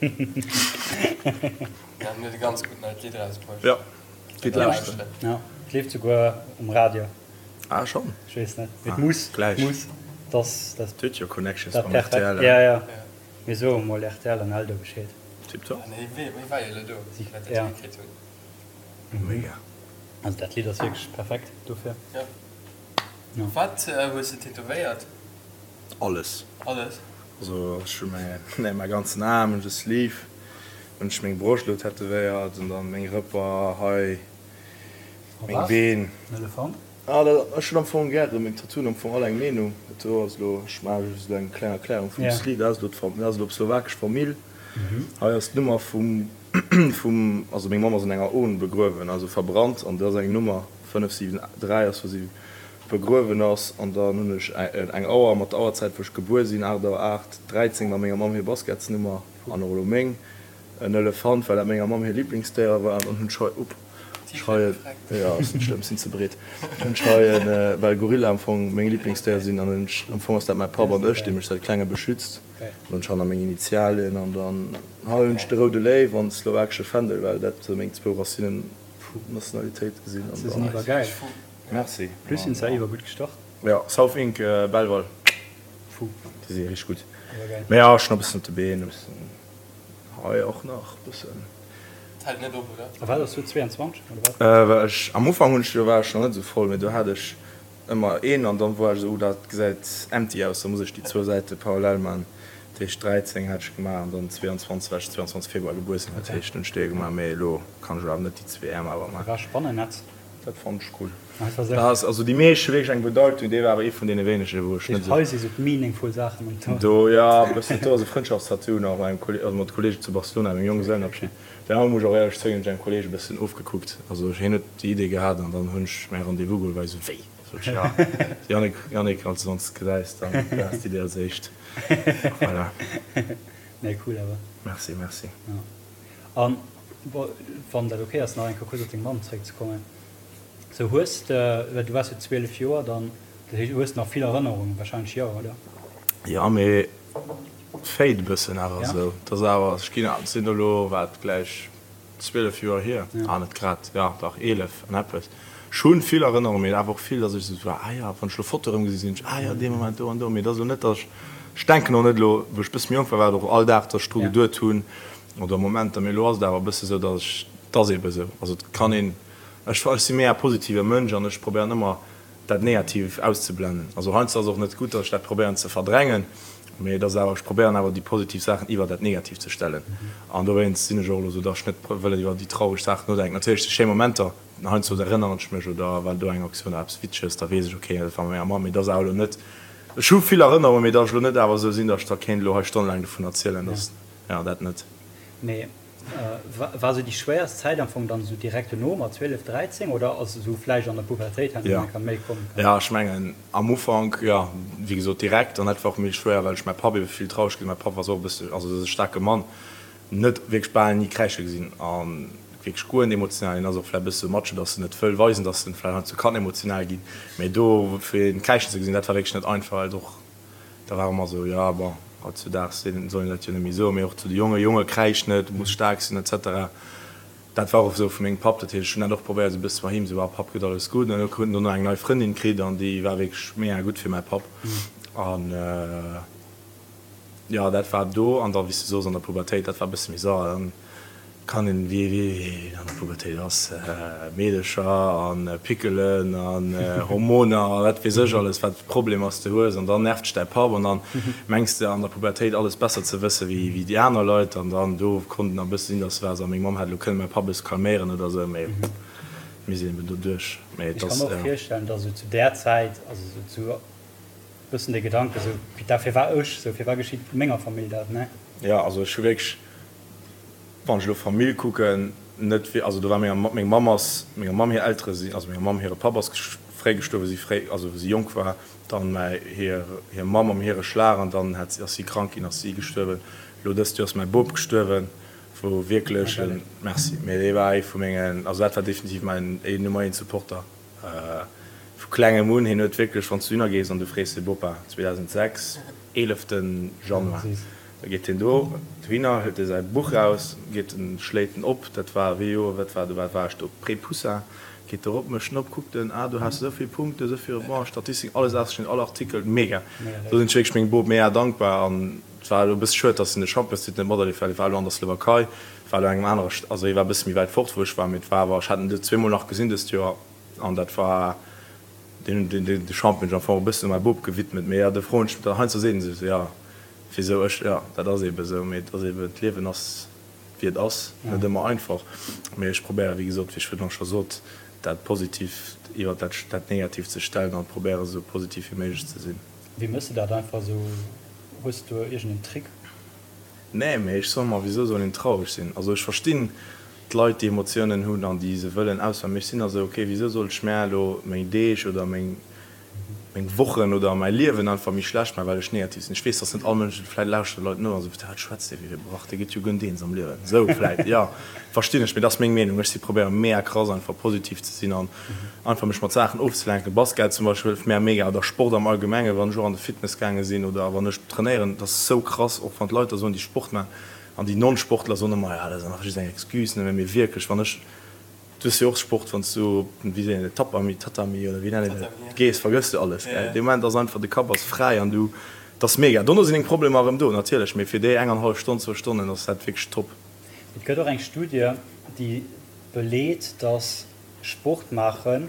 Ja, en huet e ganz gutt neit Lidd erausbruecht. Jo, gitt lauschteren. Ja, et leeft souguer um Radio. Ah, schonn? Ech weess net, mee et muss, et muss, dass dat. Et huet jo Connections mam rtl. Ja, ja, mir soe mol rtl an Eldo Bescheed. Tiptop. Nee, wee war jo elo do, wéi dat hikritt hunn. Mega. Also dat Lidd ass wierklech perfekt dofir. Jo. Wat hues de tätowéiert? Alles. Alles? Also ech hu mäi mäi ganzen Aarm, hunn ech e Sleeve, hunn ech meng Broscht elo tätowéiert an dann meng Rëpper hei, meng Been. En Elefant? Ah dat, ech hunn am Fong gären, meng Tattooen am Fong all eng Meenung. Dat do ass elo, ech maache just elo eng kleng Erklärung vum Sleeve, dat ass elo d'Fam, dat ass elo d'slowakesch Famill. Hei ass d'Nummer vum, vum, also meng Mamm ass an enger Urn begruewen, also verbrannt an dat ass eng Nummer. 5, 7, 3 ass wou si begruewen ass an dann hunn ech eng Auer mat der Auerzäit wou ech gebuer sinn, 8 Auer 8, 13 war menger Mamm hir Basketsnummer an och elo meng, en Elefant well dat menger Mamm hir Liblingsdéier war an dann hunn ech hei, upp, ech hei en, jo ass net schlëmm, sinn ze breet, hunn ech hei en, well Gorilla am Fong meng Liblingsdéier sinn an hunn ech, am Fong ass dat mäi Papp an ech dee mech säit klengem beschützt, an hunn ech hanner meng Initialien an dann hei hunn ech de roude Léiw an de slowakesche Fändel well dat sou meng zwou Racinen Nationalitéit gesinn an dann. Iwwer geil. Merci. Plus sinn se iwwer gutt gestart. Jo, South Inc Belval. Fou. Déi si richteg gutt. Mee jo, ech hunn e bëssen op de Been, e bëssen hei och nach e bëssen. Et hält net op, oder? A wat ass do 22 oder wat? Well ech am Ufank hunn ech, do war ech nach net esou voll, mee do hat ech Ëmmer een an dann woar ech esou, oh dat gesäit empty aus, da muss ech déi zwou Säite parallel man. Dat heescht 13 hat ech gemaach an dann 22, well ech 22 Februar gebuer sinn, dat heescht hunn ech déi gemaach, mee elo kann ech awer net déi zwee Äerm awer man. War Spannennetz. Dat fonnt ech cool. Dat ass, also déi meescht hu wierklech eng Bedeitung, dee war awer ee vun deene wéinege wou ech net esou. Hei si sou d'meaningful Saachen um Tour. Do jo, e bëssen, do ass e Frëndschaftstattoo nach mat engem Kolleg, also mat Kollege zu Barcelona, mengem Jonggesellenabschied. Deen anere muss ech och éierlech zouginn, hunn ech engem Kolleg e bëssen ofgekuckt. Also hien huet déi Idee gehat an dann hunn ech mäi Rendez-vous geholl, well ech esou, wéi? Sot ech, ja Yannick, Yannick, als du ons gesäis, dann du has d'Idee als éischt. Voilà. Nee, cool awer. Merci, merci. Ja. An wann dat ok ass, nach eng Kéier kuerz op deng Mamm zeréckzekommen. Sou hues de, well du waars jo 12 Joer dann, dat heescht, hues de nach vill Erënnerungen wahrscheinlech, jo, oder? Jo, mee Fade e bëssen awer esou. Et ass awer, ech ginn, et sinn elo wat gläich 12 Joer hier, ah net grad, jo dach 11 an eppes. Ech hu vill Erënnerungen, mee awer och vill, datt ech esou war, ah jo, wann ech elo Fotoe erëm gesi sinn ech, ah jo dee Moment do an do. Mee et ass elo net, datt ech, ech denken och net elo, wou ech e bësse méi jonk war, war et och all Dag, datt ech dru geduet hunn oder Momenter, mee elo ass et awer e bësse esou, datt ech, et ass eebe esou. Also et kann een, ech, ech si méi e positive Mënsch an ech probéieren ëmmer dat Negativ auszeblennen. Also heiansdo ass et och net gutt, datt ech dat probéieren ze verdrängen, mee et ass awer, ech probéieren awer déi positiv Saachen iwwer dat Negativ ze stellen. An dowéinst sinn ech och elo esou, datt ech net wëll iwwer déi traureg Saachen nodenken. Natierlech si schéi Momenter, heiansdo erënneren ech mech oder war do eng Aktioun oder eppes Witzeges, da weess ech, okay, dat war mat menger Mamm, mee et ass awer elo net, ech hu vill Erënnerungen, mee datt ech elo net awer esou sinn, datt ech da kéint elo hei stonnelaang dovun erzielen, datt, jo, dat net. Mee War sou déi schwéierst Zäit am Fong dann sou direkt dono mat 12, 13 oder ass esou vläicht an der Pubertéit herno eng Kéier méi komm? Jo, ech mengen am Ufank, jo, wéi gesot direkt an dat war och méi schwéier, well ech mäi Papp ebe vill traureg gesinn. Mäi Papp war sou och e bësse, also dat ass e staarke Mann, net wierklech bal ni kräische gesinn a wierklech guer net emotional. Hien ass och vläicht e bësse sou Macho, datt en net wëll weisen, datt en vläicht heiansdo kann emotional ginn, mee do fir hien kräischen ze gesinn, dat war wierklech net einfach, well et och Da war ëmmer esou, jo bon, hautzudaags soll een dat jo net méi soen, mee och zu de Jongen, Jonge kräisch net, du muss staark sinn et cetera. Dat war och esou vu mengem Papp, dat heescht, ech hunn dat och probéiert esou e bësse bei him, esou, ah Papp, gëtt alles gutt. An huet en dono eng nei Frëndin kritt an déi war wierklech mega gutt fir mäi Papp. An jo, dat war do. An da wéi s de soos, an der Pubertéit, dat war e bësse méi sauer. Dann. Kann een, wéi een an der Pubertéit ass, Meedecher a Pickelen an Hormoner a wat weess ech alles, wat Problemer s de hues an dann nervt dech däi Papp an dann mengs de an der Pubertéit alles besser ze wësse wéi déi aner Leit an dann do konnt en e bësse sinn, dass war a meng Mamm hätt elo kënne mäi Papp e bësse calméieren oder esou, mee mir sinn eben do duerch. Mee et ass. Ech ka mer och virstellen, dass esou zu där Zäit, also esou zu e bëssen de Gedanke esou, putain firwat ech esou, firwat geschitt menger Famill dat, ne? Jo, also ech hu wierklech. Wann ech elo Famill kucken, net wéi, also do war menger, meng Mamm ass, menger Mamm hir Eltere sinn, also menger Mamm hire Papp ass fréi gestuerwen, wou si fréi, also wou si jonk war, dann mäi, hir, hir Mamm am hire Schlag an dann hat si, ass si krank ginn, ass si gestuerwen. Elo dëst Joer ass mäi Bop gestuerwen, wou wierklech en, merci, mee dee war ee vu mengen, also dat war definitiv mäin Nummer eent Supporter vu klengem un. Hien huet wierklech, wann s du dohinner gees an du frees de Bopa, 2006, eeleften Januar, Da geet hien do dohinner, hëlt e säi Buch raus, geet en, schléit en op, dat war wéi Joer, wat war do, wat war ech do, Pré-Poussin, geet erop, mécht en op, kuckt en, ah do has de esou vill Punkten, esou vill Rebonds, Statistiken, alles ausgeschnidden, all Artikel, mega. Do sinn ech wierklech mengem Bop mega dankbar an et war elo e bësse schued, dass en de Championstitel net materlieft well hie war elo an der Slowakei, war elo an engem anere, also hie war e bësse méi wäit fort wou ech war, mee et war awer, ech hat en zweemol nach gesinn dëst Joer an dat war, deen, deen, de Champion hunn ech am Fong e bëssen u mäi Bop gewidmet, mee jo, do froen ech, heiansdo seet en sech esou, jo. Wisou ech? Jo, dat ass eebe sou, mee et ass eeben, d'Liewen ass wéi et ass, net ëmmer einfach. Mee ech probéieren, wéi gesot, wéi ech virdrun scho sot, dat Positiivt iwwer dat dat Negatiivt ze stellen an probéieren esou positiv wéi méiglech ze sinn. Wéi mëss de dat einfach esou? Hues de do iergend en Trick? Nee, mee ech soe mer, wisou soll een traureg sinn? Also ech verstinn d'Leit, déi Emotiounen hunn an déi se wëllen ausfalen, mee ech sinn da sou, okay, wisou soll ech mär elo meng Deeg oder meng meng Wochen oder mäi Liewen einfach méi schlecht maachen, well ech negativ sinn. Ech weess, dass net all Mënsch, vläit lauschteren Leit no a soen, wat schwätzt dee fir e Brach, dee gëtt jo guer net eens am Liewen. Esou vläit, jo, verstinn ech, mee dat ass meng Meenung. Ech si probéiere mega krass einfach positiv ze sinn an einfach mech mat Saachen ofzelenken. Basket zum Beispill hëlleft mär mega oder Sport am Allgemengen, wann ech och an de Fitness gaange sinn oder wann ech trainéieren, dat ass esou krass, och wann d'Leit da soen, déi Sport maachen an déi Non-Sportler soen ëmmer, jo, dat ass einfach just eng Excuse, mee wierklech, wann ech Du hues jo och Sport, wann s du op den, wéi seet een dat, Tapami, Tatami oder wéi nennt een dat, gees, vergëss du alles, gell. Dee Moment ass einfach, de Kapp ass fräi an du, et ass mega. Dono sinn deng Problemer erëm do, natierlech, mee fir déi eng an hallef Stonn, zwou Stonnen ass dat wierklech top. Et gëtt och eng Studie, déi beleet, dass Sport maachen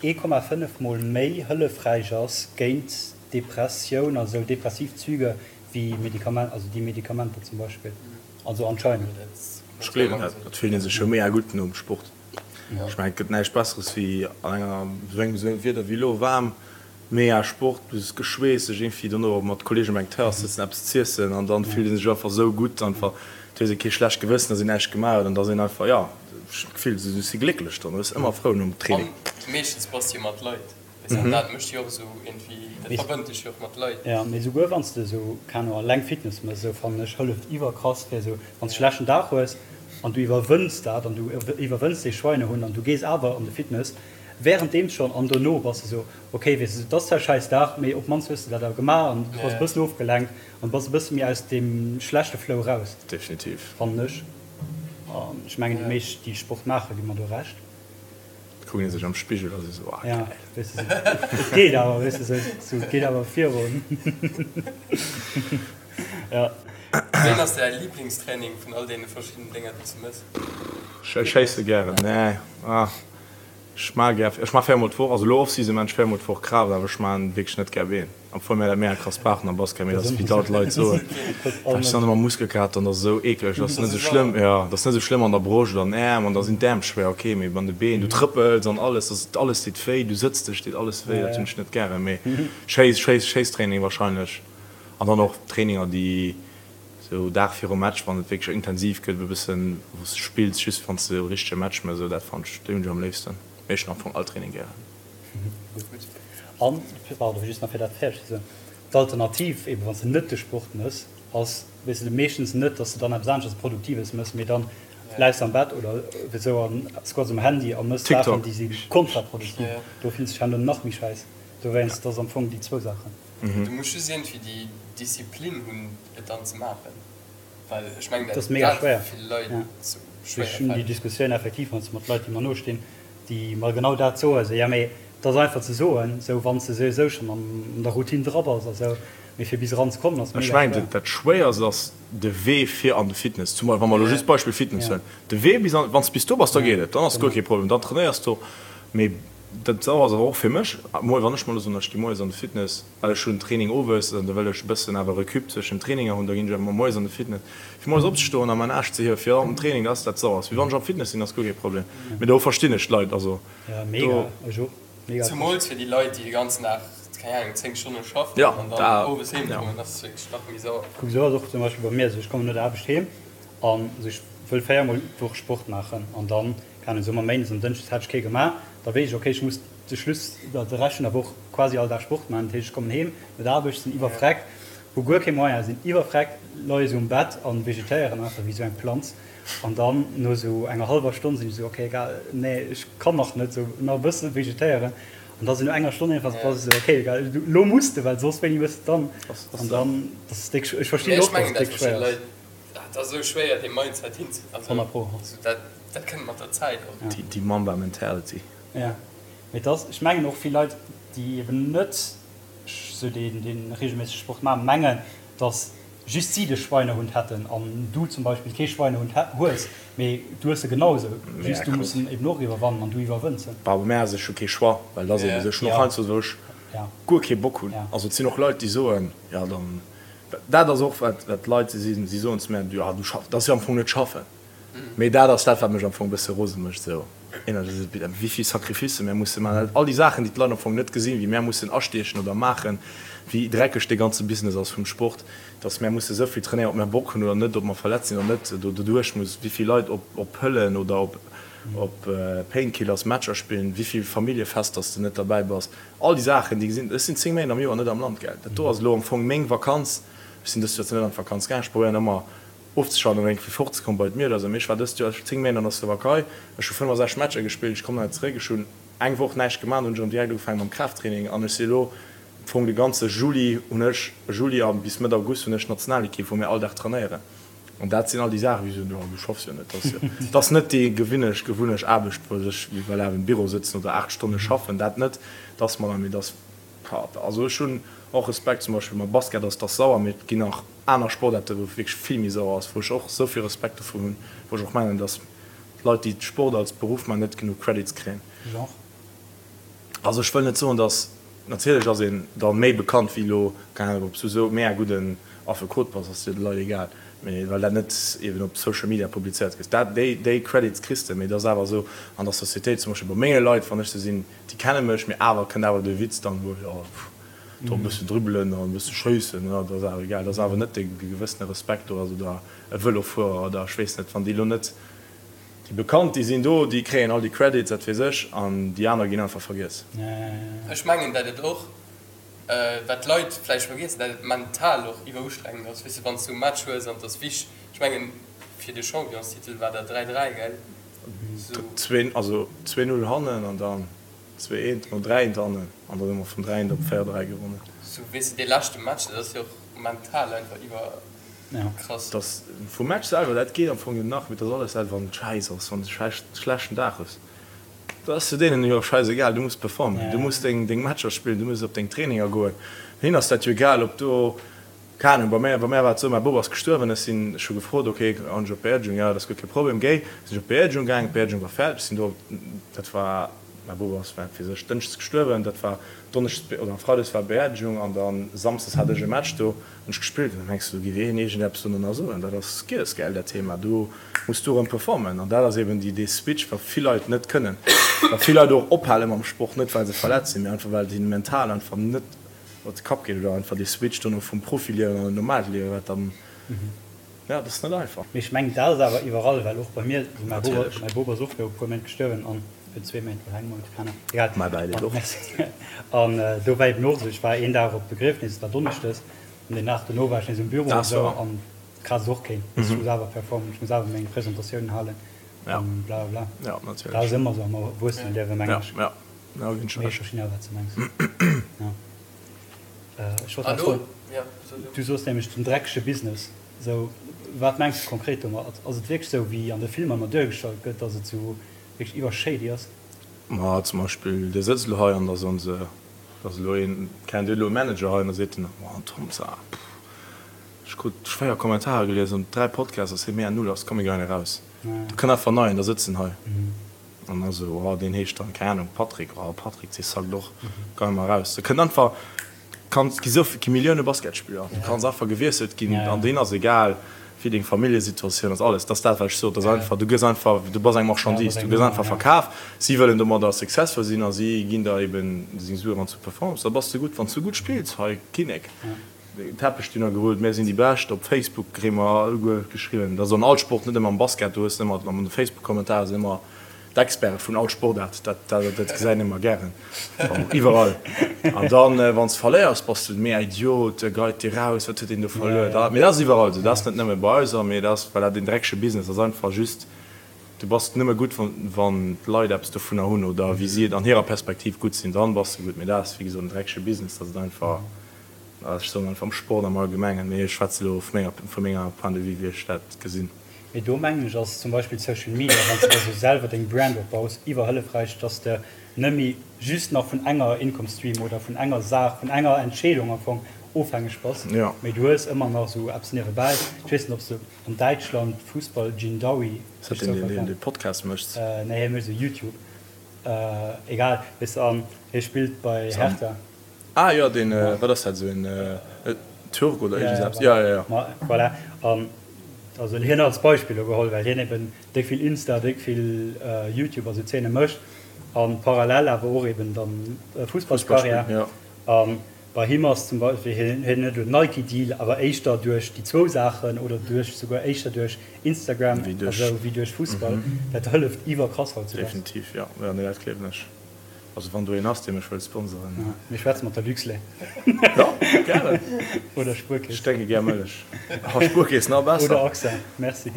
1,5 mol méi hëllefräich ass géint Depressioun, also depressiv Züge, wéi Medikament, also déi Medikamenter zum Beispill. Also anscheinend. Ech gleewen dat. Et fillt ee sech jo mega gutt nom Sport. Ech mengen, et gëtt näischt Besseres wéi an enger esou engem esou engem Wieder wéi elo, waarm, mega Sport, du hues geschweesst, sech iergendwéi dono mat Kolleegen op eng Terrass sëtzen, eppes z'iessen an dann fillt ee sech einfach esou gutt einfach. Et hues ee kee schlecht Gewëssen, dass een näischt gemaach huet an dass een einfach, jo, ech hunn d'Gefill, du si glécklech dann, du bass ëmmer frou nom Training. An meeschtens bass de jo mat Leit. Weess dat mécht jo och esou iergendwéi, dat verbënnt dech jo och mat Leit. Jo, mee souguer wann s de esou, keen Ahnung, alleng Fitness mëss, esou fannen ech, hëlleft iwwerkrass fir esou, wann s de schlechten Dag hues an du iwwerwënns dat an du iwwerwënns dee Schweinehund an du gees awer an de Fitness, währenddeems schonn an dono bass de esou, ok, weess de, et ass zwar e schäiss Dag, mee op d'mannst hues de dat awer gemaach an du bass e bëssen ofgelenkt an bass e bësse méi aus deem schlechte Flow raus. Definitiv. Fannen ech. An ech mengen déi meescht déi Sport maachen, gi mer do Recht. Kucken ee sech am Spigel a si sou, ah geil. Weess de, et geet awer, weess de, sou, et geet awer virun. Ja. Wéin ass däi Liblingstraining vun all deene verschiddenen Dénger, déi s du mëss? Ech schéisse gären, nee, ah, ech maache gär, ech maache véiermol d'Woch, also elo Off-Season maachen ech véiermol d'Woch Kraaft, awer ech maachen wierklech net gär Been. Obwuel mär dat mega krass brauchen am Basket, mee dat ass wéi dat d'Leit soen, well ech dann ëmmer Muskelkater an dat ass esou eekleg. Dat ass net esou schlëmm, jo, dat ass net esou schlëmm an der Broscht oder an den Äerm an da sinn d'Äerm schwéier, ok, mee an de Been, du trëppels an alles, dat ass alles deet wéi, du sëtz dech, deet alles wéi, dat hunn ech net gären. Mee Schéiss, Schéiss, Schéisstraining wahrscheinlech an dann och Traininger déi esou Dag virum Match, wann et wierklech intensiv gëtt, e bëssen wou s de spills, just wann s de e richtege Match méchs, esou dat fannen ech, déi hunn ech am léifsten. Mee ech hunn am Fong all Training gären. Gutt. An, pardon, just nach fir dat fäerdeg ze soen, d'Alternativ eben, wann s de net de Sport mëss, ass, weess de, meeschtens net, dass de dann eppes aneschters Produktives mëss, mee dann läis de am Bett oder esou an scrolls um Handy a mëss Saachen, déi si kontraproduktiv. Do fills de dech herno nach méi schäiss. Dowéinst, dat ass am Fong déi zwou Saachen. Du muss just iergendwéi déi Disziplin hunn, et dann ze maachen. Well ech mengen, dat ass mega schwéier. Ech hunn déi Diskussioun effektiv heiansdo mat Leit, déi mer nostinn, déi mer genau dat soen, esou, jo mee. Et ass einfach ze soen, esou wann s de souwisou schonn an der Routine dra bass a sou, mee fir bis eran ze kommen ass mega schwéier. Ech mengen dat schwéierst ass de Wee fir an de Fitness, zum Beispill wa mer elo just d'Beispill Fitness huelen, de Wee bis an, wann s bis do bass, da geet et, dann ass guer kee Problem, dann trainéiers du, mee dat ass awer och fir mech, wann ech mol elo soen, ech gi moies an de Fitness, well ech hunn Training owes an da wëll ech e bëssen awer Recup zwëschen den Traininger hunn, da ginn ech awer moies an de Fitness. Fir moies opzestoen a mäin Aarsch ze hiewen fir an den Training, dat ass dat Sauerst. Wéi wann ech am Fitness sinn, ass guer kee Problem. Mee do verstinn ech d'Leit, also do. Zumools fir déi Leit, déi de ganzen Dag, keng Ahnung, 10 Stonne schaffen an dann owes heem kommen, dat ass wierklech nach méi sauer. Kuck, esou ass och zum Beispill bei mir esou, ech kommen no der Aarbecht heem an ech wëll 4 mol d'Woch Sport maachen an dann, keng Ahnung, soe mer méindes an dënschdes hat ech kee gemaach, da weess ech, okay, ech muss de Schluss, de Rescht vun der Woch quasi all Dag Sport maachen. Dat heescht, ech kommen heem no der Aarbecht, sinn iwwerfreckt, hu guer kee Moyen, sinn iwwerfreckt, leie sou um Bett a vegetéieren einfach wéi sou eng Planz. An dann no sou enger hallwer Stonn sinn ech sou, okay, egal, nee, ech kann nach net, sou nach e bësse vegetéieren. An da sou no enger Stonn iergendwann bass de sou, okay, egal, elo muss de, well soss wéini hues de dann? An dann, dat ass déck, ech verstinn och, dass et déck schwéier ass. Dat ass esou schwéier, dee Mindset hinze, also dat kënnt mat der Zäit och. Déi Mamba Mentality. Jo, mee et ass, ech mengen och vill Leit, déi eben net sou dee regelméissege Sport maachen, mengen, datt just si de Schweinehund hätten an du zum Beispill kee Schweinehund hues, mee du hues e genau esou, just du muss en eben och iwwerwannen an du iwwerwënns en. Bah, bei mär ass et scho kee Choix, well et ass eben esou, ech hunn och heiansdo, wou ech guer kee Bock hunn, also et sinn och Leit, déi soen, jo dann, dat ass och wat Leit, si soen zu mär, jo du schaffs, dat ass jo am Fong net schaffen. Mee dat ass dat, wat mech am Fong e bësse rose mécht, esou wéi vill Sacrificë mär musse maachen, all déi Saachen, déi d'Leit am Fong net gesinn, wéi mär mussen astiechen oder maachen, wéi dreckeg dee ganze Business ass vum Sport, dass mär musse esou vill trainéieren, ob mär Bock hunn oder net, ob mer verletzt sinn oder net, do doduerch muss, wéi vill Leit op Pëllen oder op Painkillers Matcher spillen, wéi vill Familljefester s de net derbäi bass, all déi Saachen, déi gesinn. Ech sinn 10 Méint am Joer net am Land, gell. Dat do ass elo am Fong meng Vakanz. Ech sinn dëst Joer zwar net an d'Vakanz gaang, ech probéieren ëmmer, Ofzeschalten an eng Kéier fort ze kommen bei d'Mier oder sou. Mee ech war dëst Joer 10 Méint an der Slowakei, ech hu 65 Matcher gespillt, ech kommen hei zeréck, ech hunn eng Woch näischt gemaach, dann hunn ech erëm direkt ugefaangen mam Kraafttraining an ech si elo am Fong de ganze Juli hunn ech, Juli a bis Mëtt August hunn ech d'Nationalekipp wou mir all Dag trainéieren an dat sinn all déi Saachen, wéi soen, jo du schaffs jo net, dat ass jo, dat ass net déi gewinnecht, gewunnecht Aarbecht wou ech wéi am Büro sëtzen oder 8 Stonne schaffen, dat net, dat ass mer dann, mee dat ass, also ech hunn och Respekt zum Beispill mam Basket ass, dat ass sauer, mee et ginn nach. Aner Sportaarte wou et wierklech vill méi sauer ass, wou ech och esou vill Respekt dovun hunn, wou ech och mengen, datt Leit, déi Sport als Beruff maachen, net genuch Credits kréien. Genre? Also ech wëll net soen, datt, natierlech ass een da méi bekannt wéi elo, keng Ahnung, ob s du esou mega gudden Affekot bass, ass jo de Leit egal, mee well dat net eben op Social Media publizéiert gëtt. Dat, déi, déi Credits kriss de, mee et ass awer esou an der Societéit, zum Beispill bei menge Leit, wann ech se sinn, déi kenne mech, mee awer kënnt awer de Witz dann, wou, jo, pff, Do e bëssen dribbelen an e bësse schéissen, jo, dat ass awer egal. Dat ass awer net dee gewëssene Respekt do ass oder e Vëlofuerer oder ech weess net, wann déi elo net déi bekannt, déi sinn do, déi kréien all déi Credits, dat weess ech, an déi aner ginn einfach vergiess. Ech mengen, dat et och, wat d'Leit vläicht vergiessen, dat et mental och iwwerustrengend ass, weess de, wann s du e Match hues an et ass wich, ech mengen, fir de Championstitel war dat 3, 3, gell? Zwee, also 2, 0 hannen an dann. 2 eent no 3 eent hannen an dann hu mer vun 3 eent op 4 3 gewonnen. Sou weess de dee leschte Match, dat ass jo och mental einfach iwwer krass. Dass vum Match selwer, dat geet am Fong jo nach, mee dass alles dat wann et schäiss ass, wann s de schlechten Dag hues, dat ass jo deenen jo schäisegal, du muss performen, du muss deng deng Matcher spillen, du muss op deng Traininger goen, hinnen ass dat jo egal ob do, keng Ahnung, bei mär bei mär war et sou, mäi Bop ass gestuerwen, ech sinn, ech hu gefrot, ok, kann ech op d'Beerdegung, jo dat ass guer kee Problem, géi, sinn ech op d'Beerdegung gaang, d'Beerdegung war fäerdeg, sinn do, dat war. Mäi Bop ass fir sech dënschdes gestuerwen, dat war donneschdes oder freides war Beerdegung an da samsdes hat ech e Match do, hunn ech gespillt an da mengs du, do géif een iergendeppes dono nach soen, dat ass giess, gell, dat Thema, do muss du erëm performen an dat ass eben déi dee Switch, wat vill Leit net kënnen, wat vill Leit och ophale mam Sport, net well se verletzt sinn, mee einfach well et hinnen mental einfach net op de Kapp geet oder einfach dee Switch dono vum Profiliewen an en normaalt Liewen, wat dann. Ja, dat ass net einfach. Mee ech mengen, dat ass awer iwwerall, well och bei mir, also mäi Bop, mäi Bop ass och viru e puer Méint gestuerwen an virun zwee Méint oder engem Mount, keng Ahnung, egal. Mäi Bäileed och. Merci. An do war eben och esou, ech war een Dag op d'Begriefnis, et war donneschdes, an deen Dag dono war ech nees um Büro an esou, an kraass och keen. Ech muss awer performen, ech muss awer meng Presentatiounen halen an bla bla bla. Ja, natierlech. Dat ass ëmmer esou am Erwuesseneliewen, mengen ech. Ja, ja, ginn ech Mee ech verstinn awer, wat s de mengs. Ja. Ech wollt nach froen, du soos nämlech den dreckege Business. Sou, wat mengs de konkret domat? Ass et wierklech sou, wéi an de Filmer ëmmer duergestallt gëtt, dass et sou wierklech iwwer shady ass? Ma zum Beispill, Dir sëtzt elo hei an da soen se, da ass elo een, kennt Dir elo e Manager hei an da seet en, Oh, den Tom Saar, pff, ech krut schwéier Kommentarer gelies an 3 Podcasts ass hie mega null ass, komm mir geien eraus. Da kënnt einfach en neien, da sëtzt en hei an da sou, oh, deen heescht dann, keng Ahnung, Patrick, oh, Patrick, dee sackt och, geie mer eraus. Da kënnt einfach, Kanns gi sou gi Millioune Basketspiller, du kanns einfach gewiesselt ginn an deen ass egal wéi deng Familljesituatioun ass, alles. Dat ass dat wat ech sot, dat ass einfach, du gëss einfach, du bass eng Marchandise, du gëss einfach verkaf. Si wëllen domadder successful sinn a si ginn der eben seng Sue wann s du performs, da bass de gutt. Wann s du gutt spills, hei Kinnek, Teppech dunner gerullt, mär sinn déi Bescht. Op Facebook kréie mer alleguer geschriwwen, dat ass an all Sport, net ëmmer am Basket, do hues de ëmmer an de Facebook-Kommentare sinn ëmmer D'Experte vun all Sportaart, dat, dat gesäit een ëmmer gären, iwwerall. An dann, wann s de verléiers, bass de mega Idiot, geit dir raus, wat huet deen do verluer? Da, mee dat ass iwwerall esou, dat ass net nëmme bei eis, mee dat ass, well dat een dreckege Business ass, einfach just, du bass nëmme gutt, wann, wann d'Leit eppes dovunner hunn oder wéi si et an hirer Perspektiv gutt sinn, dann bass de gutt. Mee dat ass, wéi gesot, en dreckege Business, dat et einfach, ech soen einfach am Sport am Allgemengen, mee ech schwätze elo vu menger, vu menger Point de vue, wéi ech dat gesinn. Mee do mengen ech ass zum Beispill Social Media, wann s de der sou selwer deng Brand opbaus, iwwerhëllefräich, dass de net méi just nach vun enger Income Stream oder vun enger Saach, vun enger Entscheedung am Fong ofhängeg bass, mee du hues ëmmer nach sou eppes niewebäi. Ech weess net, ob s de an Däitschland Fussball Jindaoui Ass dat deen, deen dee Podcast mécht? Nee, hie mécht sou YouTube. Egal, weess de, an hie spillt bei Hertha. Ah jo, deen, wat ass dat, esou en Türk oder iergend eppes? Jo, jo, jo. Ma voilà, an also hien als Beispill elo geholl, well hien eben déck vill Insta, déck vill YouTube a sou Zeene mécht a parallel awer och eben dann Fussballskarriär. A bei him ass zum Beispill, hien huet elo Nike Deal, awer éischter duerch déi zwou Saachen oder duerch souguer éischter duerch Instagram a sou wéi duerch Fussball. Dat hëlleft iwwerkrass hautzudags. Definitiv, jo, jo, nee, dat gleewen ech. Also wann do een ass dee mech wëllt sponsoren. Mir schwätze mat der Luxlait. Jo, gären. Oder Spuerkeess. Ech drénke gär Mëllech. Oh, Spuerkeess, nach besser. Oder AXA, merci.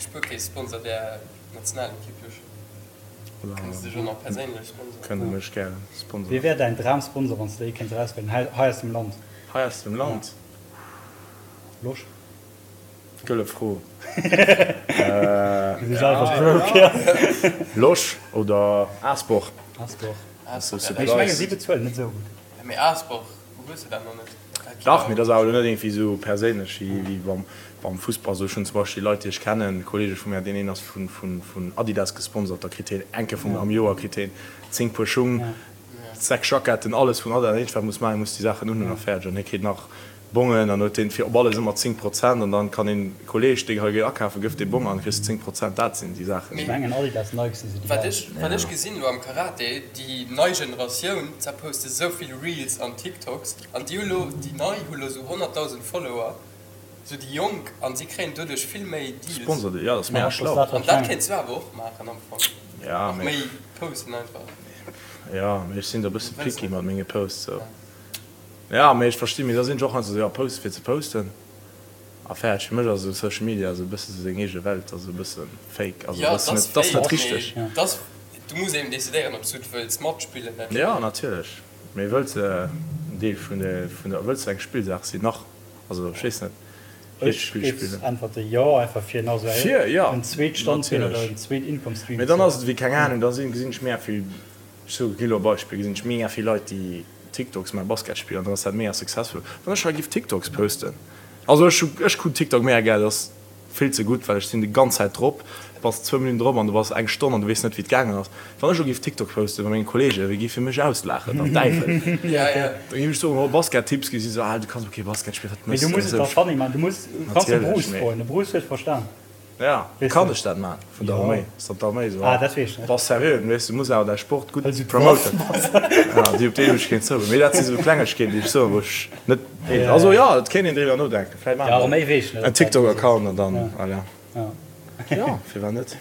Spuerkeess sponsert är Nationalekipp jo schonn. Kënne se dech och nach perséinlech sponsoren? Kënne mech gären sponsoren. Wie wär däin Dramsponsor wann s de ee kéints erauswielen hei aus dem Land? Hei aus dem Land? Losch. Gëlle Fro. Losch oder Aasbor? Aasbor. Mee ech mengen si bezuelen net esou gutt. Mee Aasbor, hues de dat nach net? Dach, mee dat ass awer elo net iergendwéi esou perséinlech wéi beim Fussball. Esou, ech hunn zum Beispill Leit, déi ech kennen, Kolleege vu mär, deen een ass vun Adidas gesponsert, da kritt hien eng Kéier vum am Joer kritt hien 10 Puer Schung, 6 Jacketten, alles vun Adidas. Dat eenzegt wat e muss maachen, e muss déi Saachen unhunn a fäerdeg. An hie kritt nach Bongen an huet deen fir op alles ëmmer 10 Prozent an dann kann een Kolleg dee hei geet akafen gëff dee Bong an kriss de 10 Prozent dat sinn déi Saachen. Ech mengen Adidas, Nike sinn sou déi Wat ech wat ech gesinn elo am Karate, déi nei Generatioun ze poste sou vill Reels an TikToks an déi hu lo déi nei hu lo sou 100.000 Follower, sou déi Jonk an si kréien doduerch vill méi Deals. Sponsor jo dat ass mega schlau. An dat kéints du awer och maachen am Fong, och méi posten einfach. Jo mee ech sinn do e bësse picky mat menge Posts sou. Ja, mee ech verstinn, mee da sinn ech och heiansdo esou, jo, posten fir ze posten a fäerdeg. Fir mech ass esou Social Media esou e bësse sou seng eege Welt, ass esou e bësse fake, also Ja, dat ass et ass net, dat ass net fake, richteg. mee et ass, du muss eben decidéieren, ob s du et wëlls matspillen, dat Ja, natierlech, mee wëlls de en Deel vun der, vun der, wëlls de eng Spillsaach sinn nach? Also ech weess net, Ech Spill géif spillen. äntwerte jo, einfach fir nach esou Fir, ja, en zweet Standbeen oder en zweet Income Stream Mee ze dann ass et ewéi, keng Ahnung, da sinn, gesinn ech mega vill, ech soe, ginn elo e Beispill, gesinn ech mega vill Leit, déi TikToks mä Basket spillen an dann ass dat mega successful. Wann ech hei giff TikToks posten, also ech hu ech kucken TikTok mega gär, dat ass vill ze gutt, well ech sinn déi ganz Zäit drop, du bass zwou Minutten drop an du bass eng Stonn an du weess net wéi et gaangen ass. Wann ech elo giff TikTok posten bei menge Kollegen, wéi giffe mech auslaachen, der Däiwel. Da giff ech soen, oh Basket Tipps, gi si sou, ah du kanns och kee Basket spillen, wat Mee mëss du de? muss et da funny maachen, du muss, du kanns de Bruce froen, de Bruce huet verstan. Ja, kann ech dat man? Vun der Arméi? Ass dat d'Arméi esou? Ah, dat weess ech net. Bass seriö, weess du muss awer däi Sport gutt promoten. Ja, déi op déi hu ech keen Zougang. Mee dat si sou Klengegkeeten, déi ech soen, wou ech net, also jo, et kéint een driwwer nodenken. Vläicht maache mer en TikTok-Account an dann, voilà. Jo, firwat net?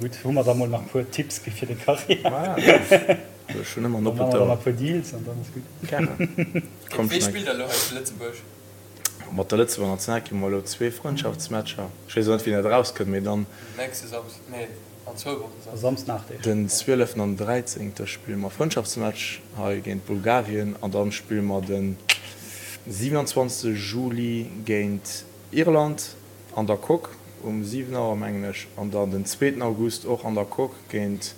Gutt, hu mer da mol nach e puer Tipps gi fir deng Karriär. Ech hunn ëmmer en oppent Ouer. Dann maache mer da nach e puer Deals an dann ass gutt. Gären. Komm, Wee spillt da elo hei zu Lëtzebuerg? Mat der Lëtzebuerger Nationalekipp hu mer elo zwee Frëndschaftsmatcher. Ech weess och net, wéini dat erauskënnt, mee dann. Nächste Samsden, nee, an zwou Wochen Samsden. Samsden 8 Deeg. Den 12 an 13 spille mer Frëndschaftsmatch hei géint Bulgarien an dann spille mer den 27 Juli géint Irland an der Coque um 7 Auer mengen ech an dann den zweeten August och an der Coque géint.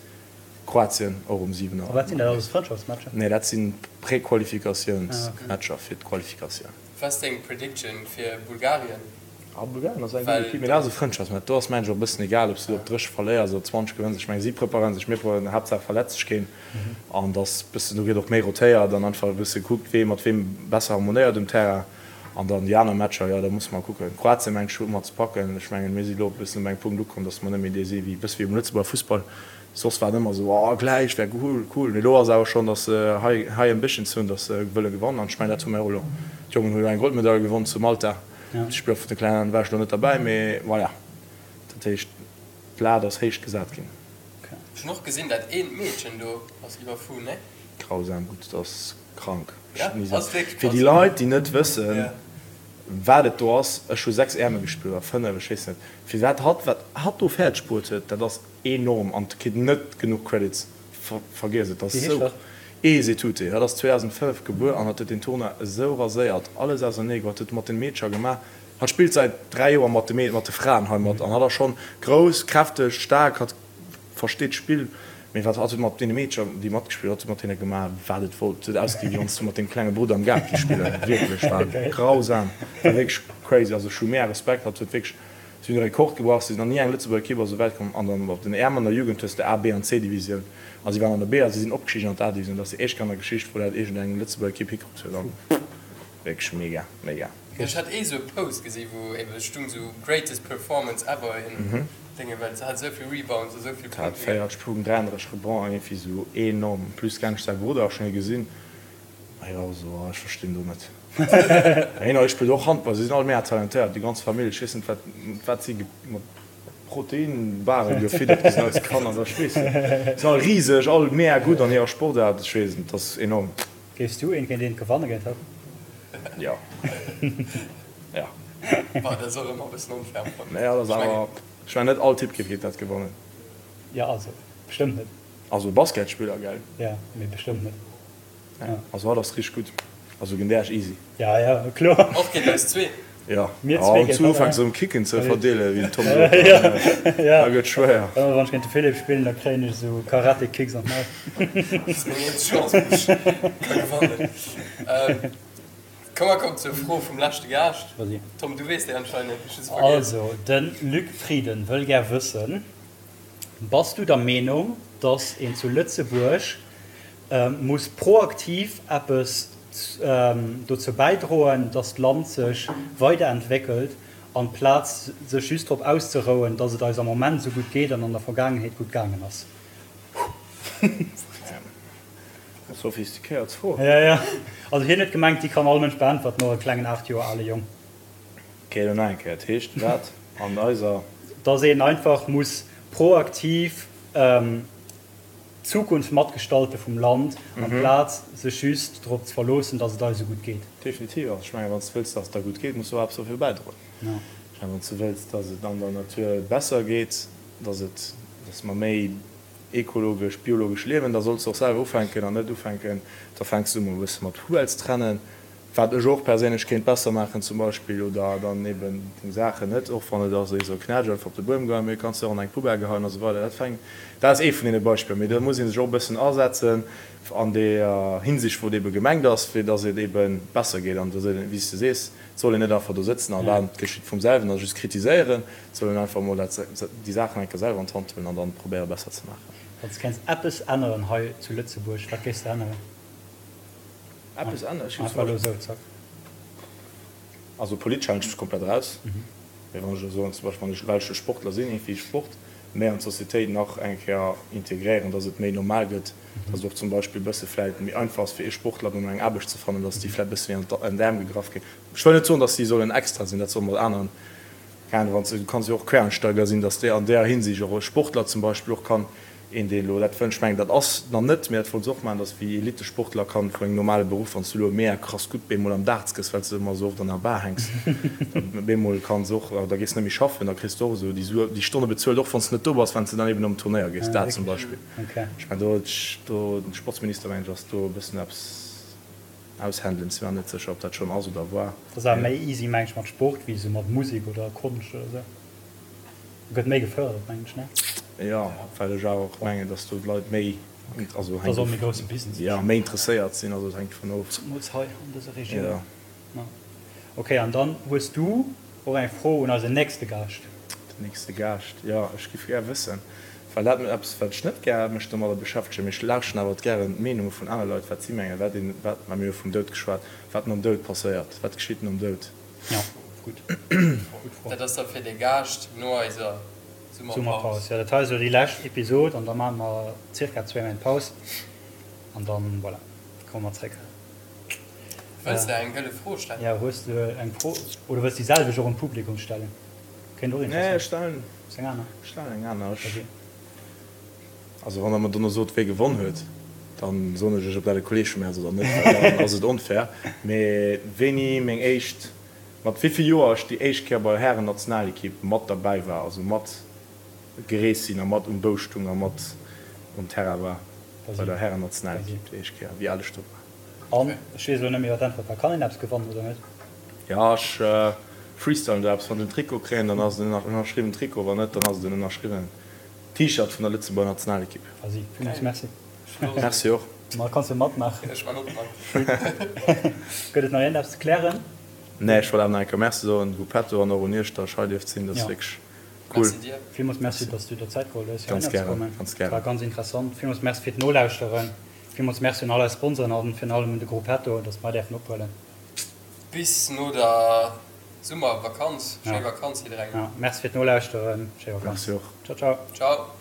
Kroatien och um 7 Auer. A wat sinn dat alles, Frëndschaftsmatcher? Nee, dat si Prequalifikatiounsmatcher fir d'Qualifikatioun. Wat ass deng Prediction fir Bulgarien? Ah, Bulgarien ass eng gutt Equipe, mee dat ass e Frëndschaftsmatch. Do ass mengen ech och e bëssen egal, ob s du op 30 verléiers oder 20 gewënns. Ech mengen, si preparéieren sech, mir preparéieren, Haaptsaach verletzt sech keen. An dass bëssen, do gëtt och méi rotéiert an einfach e bësse gekuckt, wee mat weem besser harmonéiert um Terrain. An dann déi aner Matcher, jo, da musse mer kucken. Kroatien, mengen ech, hu mer ze packen. Ech mengen, mir si lo e bëssen op engem Punkt ukomm, dass mer net méi dee si wéi, bësse wéi um Lëtzebuerger Fussball. Soss war et ëmmer esou, oh, gläich wär cool, cool. Mee elo ass awer schonn, dass se high, high ambitions hunn, dass se wëlle gewannen. An ech mengen, dat hu mir och elo. D'Jongen hu jo eng Goldmedail gewonn zu Malta. D'Spiller vun de Klengen war ech elo net derbäi, mee voilà. Dat heescht, d'Lat ass héich gesat ginn. Ech hunn och gesinn, dat eent Meedchen do ass iwwerfu, ne? Grausam gutt, dat ass krank. Fir déi Leit, déi net wëssen, wat et do ass, ech hu 6 Äerme gespillt, oder 5, ech weess net, fir wat hatt, wat hatt do fäerdeg bruet huet, dat ass enorm an kritt net genuch Credits. Vergiess et, dat ass esou. Esetute, hatt ass 2005 gebuer an hatt huet deen Tournoi esou raséiert, alles ausernee geholl, huet mat den Meedcher gemaach. Hatt spillt säit 3 Joer mat de mat de Fraen hei mat an hatt ass schonn grouss, kräfteg, staark, hatt versteet d'Spill. Mee wat hatt huet mat deene Meedcher, déi matgespillt, hatt huet mat hinne gemaach, wat et wollt. Et huet ausgesi wéi wann s du mat dengem klenge Brudder am Gaart géif spillen. Wierklech, war grausam, war wierklech crazy. Also ech hu mega Respekt, hatt huet wierklech, si hunn e Rekord gebrach, si sinn nach ni eng Lëtzebuerger Ekipp ass esou wäit komm. An dann op den Äerm an der Jugend hues de A, B an C Divisioun a si waren an der B a si sinn opgestigen an d'A Divisioun. Dat ass déi éischt Kéier an der Geschicht, wou dat iergendeng Lëtzebuerger Ekipp hikrutt huet. An wierklech mega, mega. Ech hat ee sou e Post gesi wou ebe stung sou greatest performance ever in Dénge well se hat esou vill Rebounds a sou vill Punkte. Hat 40 Punkten, 33 Rebonds an iergendwéi sou enorm. En plus kenn ech säi Brudder, ech hunn hie gesinn, a hie war och sou, oh ech verstinn do net. Hien hei spillt och Handball, si sinn all mega talentéiert, déi ganz Famill. Ech weess net wat wat si mat Proteinbaren gefiddert gi sinn als Kanner, ech weess net. Si sinn all riseg, all mega gutt an hirer Sportaart, ech weess net, dat ass enorm. Géifs du een géint eent gewanne géint hatt? Jo. Jo. Bah, dat ass och ëmmer e bëssen onfair am Fong. Nee, dat ass awer, ech mengen net all Typ géif géint dat gewannen. Jo, also bestëmmt net. Also Basketspiller, gell? Jo, mee bestëmmt net. Nee, also hatt ass richteg gutt. Also géint Äech easy. Ja, ja, kloer. Och géint eis zwee. Jo, Mir zwee géint hatt, ufänks erëm Kicken ze verdeelen, wéi den Tom sot, da gëtt schwéier. Ëmmer wann ech géint de Philippe spillen, da kréien ech esou Karate-Kicks an d'Maul. Dat ass meng eenzeg Chance, wou ech ka gewannen. Komm, mer kommen zur Fro vum leschte Gaascht. Tom, du weess déi anscheinend, ech hu se vergiess. Also, de Luc Frieden wëll gär wëssen, Bass du der Meenung, datt een zu Lëtzebuerg muss proaktiv eppes dozou bäidroen, datt d'Land sech weiderentwéckelt, amplaz sech just drop auszerouen, datt et eis am Moment esou gutt geet an an der Vergaangenheet gutt gaangen ass? Sophistiquéiert Fro. Jo, jo. Also hien huet gemengt, déi kann all Mënsch beäntwerten, och e klengen 8 Joer ale Jong. Ok, elo nach eng Kéier. Dat heescht wat an eiser. Datt een einfach muss proaktiv d'Zukunft matgestalte vum Land, amplaz sech just drop ze verloossen, datt et eis esou gutt geet. Definitiv. Also ech mengen, wann s de wëlls, datt et der gutt geet, muss de och eppes dofir bäidroen. Ech mengen, wann s de wëlls, datt et an der Natur besser geet, datt et, datt mer méi ekologesch, biologesch liewen, da solls de och selwer ufänken an net ufänken, da fänks du emol e bësse mat Poubelles trennen, Wat ech och perséinlech kéint besser maachen zum Beispill, oder dann eben deng Saachen net, och wann et ass esou knätsch einfach op de Buedem geheien, mee kanns de och an eng Poubelle geheien a sou weider. Dat fänkt, dat ass ee vun deene Beispiller, mee do muss ee sech och e bëssen asetzen an deeër Hinsicht wou et ebe gemengt ass, fir datt et ebe besser geet. An wéi s de sees, et soll een net einfach do sëtzen a waarden, et geschitt vum selwen a just kritiséieren, et soll een einfach emol dat, déi Saachen eng Kéier selwer an d'Hand huelen an dann probéiere besser ze maachen. Wann s de kéints eppes änneren hei zu Lëtzebuerg, wat géifs de änneren? Eppes änneren? Ech géif zum Beispill, also politesch halen ech mech komplett eraus, mee wann ech elo soen, zum Beispill wann ech, well ech e Sportler sinn, iergendwéi Sport méi an d'Societéit nach eng Kéier integréieren, datt et méi normal gëtt, datt et och zum Beispill e bësse vläit méi einfach ass fir ee Sportler dann eng Aarbecht ze fannen, datt déi vläit e bësse méi an d'Äerm gegraff ginn. Ech wëll net soen, datt déi sollen extra sinn, dat solle mat aneren, keng Ahnung, wann s de, du kanns jo och Quereinsteiger sinn, datt déi an där Hinsicht och e Sportler zum Beispill och kann Een deen elo dat wënscht, mengen dat ass nach net, mee dat wollt se och maachen, dass wéi Elitesportler kann vun engem normale Beruff, wann s du elo mega krass gutt bemol am Darts gëss, well s de ëmmer esou oft an der Bar hänks, da bemol kanns och, da gees net méi schaffen, da kriss de och esou déi Sue, déi Stonne bezuelt, och wann s de net do bass, wann s de dann eben op en Turnéier gees, dat zum Beispill. Ech mengen do, do den Sportsminister mengen ech ass do e bëssen eppes aushändelen, si mer net sécher ob dat schonn ass oder war. Dat ass awer méi easy mengen ech mat Sport wéi esou mat Musek oder Konscht oder esou. Gëtt méi gefërdert mengen ech, ne? Jo, well ech awer och mengen, dass do d'Leit méi, also Dat ass och méi grousse Business. Jo, méi interesséiert sinn, also et hänkt dovun of. Zemools hei an dëser Regioun. Jo. Ok, an dann hues du och eng Fro un eisen nächste Gaascht. Den nächste Gaascht, jo, ech giff gär wëssen, well dat eppes wat ech net gär mech domadder beschäftegen, mee ech lauschten awer gären d'Meenunge vun aner Leit, wat si mengen, wat een, wat, mä mir hu vum Doud geschwat, wat nom Doud passéiert, wat geschitt nom Doud? Jo, gutt, gutt Fro. Dat ass da fir de Gaascht no eiser Summerpaus. Summerpaus, jo, dat hei ass elo déi lescht Episod an da maache mer zirka zwéi Méint Paus an dann, voilà, komme mer zréck. Wëlls de eng gëlle Fro stellen? Jo, hues de eng Fro oder wëlls déi selwecht och un d'Publikum stellen? Kéint och Nee, interessant ech stellen, Hues eng aner? ech stellen eng aner. Ech, Ok. also wann der mer dono sot, wee gewonn huet, dann soen ech iech, ob dat e Kolleeg vu mir ass oder net, well dann ass et onfair. Mee wéini meng éischt, mat wéi vill Joer ech déi éischt Kéier bei der Hären-Nationalekipp mat derbäi war, also mat gereest sinn a mat um Bou stung a mat um Terrain war bei der Hären-Nationalekipp déi éischt Kéier, wéi al ech do war. An ech weess elo net méi wat d'Äntwert war. Kann een eppes gewannen oder net? Jo, ech freestylen do eppes. Wann ech en Trikot kréien, dann ass et en ënnerschriwwen Trikot, wann net, dann ass et en ënnerschriwwenen T-Shirt vun der Lëtzebuerger Nationalekipp. Vas-y, villmools Merci. Merci och. Ma kanns jo matmaachen. Ech man och mat. Gëtt et nach iergendeppes ze klären? Nee, ech wollt awer nach eng Kéier Merci soen, Gruppetto, an och un iech, datt ech hei dierft sinn. Dat ass wierklech cool. Merci dir. Villmools Merci, datt s du der Zäit geholl hues, Ganz heihinner ze gären, kommen. ganz gären. War ganz interessant. Villmools Merci fir d'Nolauschteren. Villmools Merci un all eis Sponsoren an virun allem un de Gruppetto, dass mer däerfen ophuelen. Bis no der Summervakanz. Schéi Vakanz jidderengem. Merci fir d'Nolauschteren. Schéi Vakanz. Merci och. Ciao ciao. Ciao.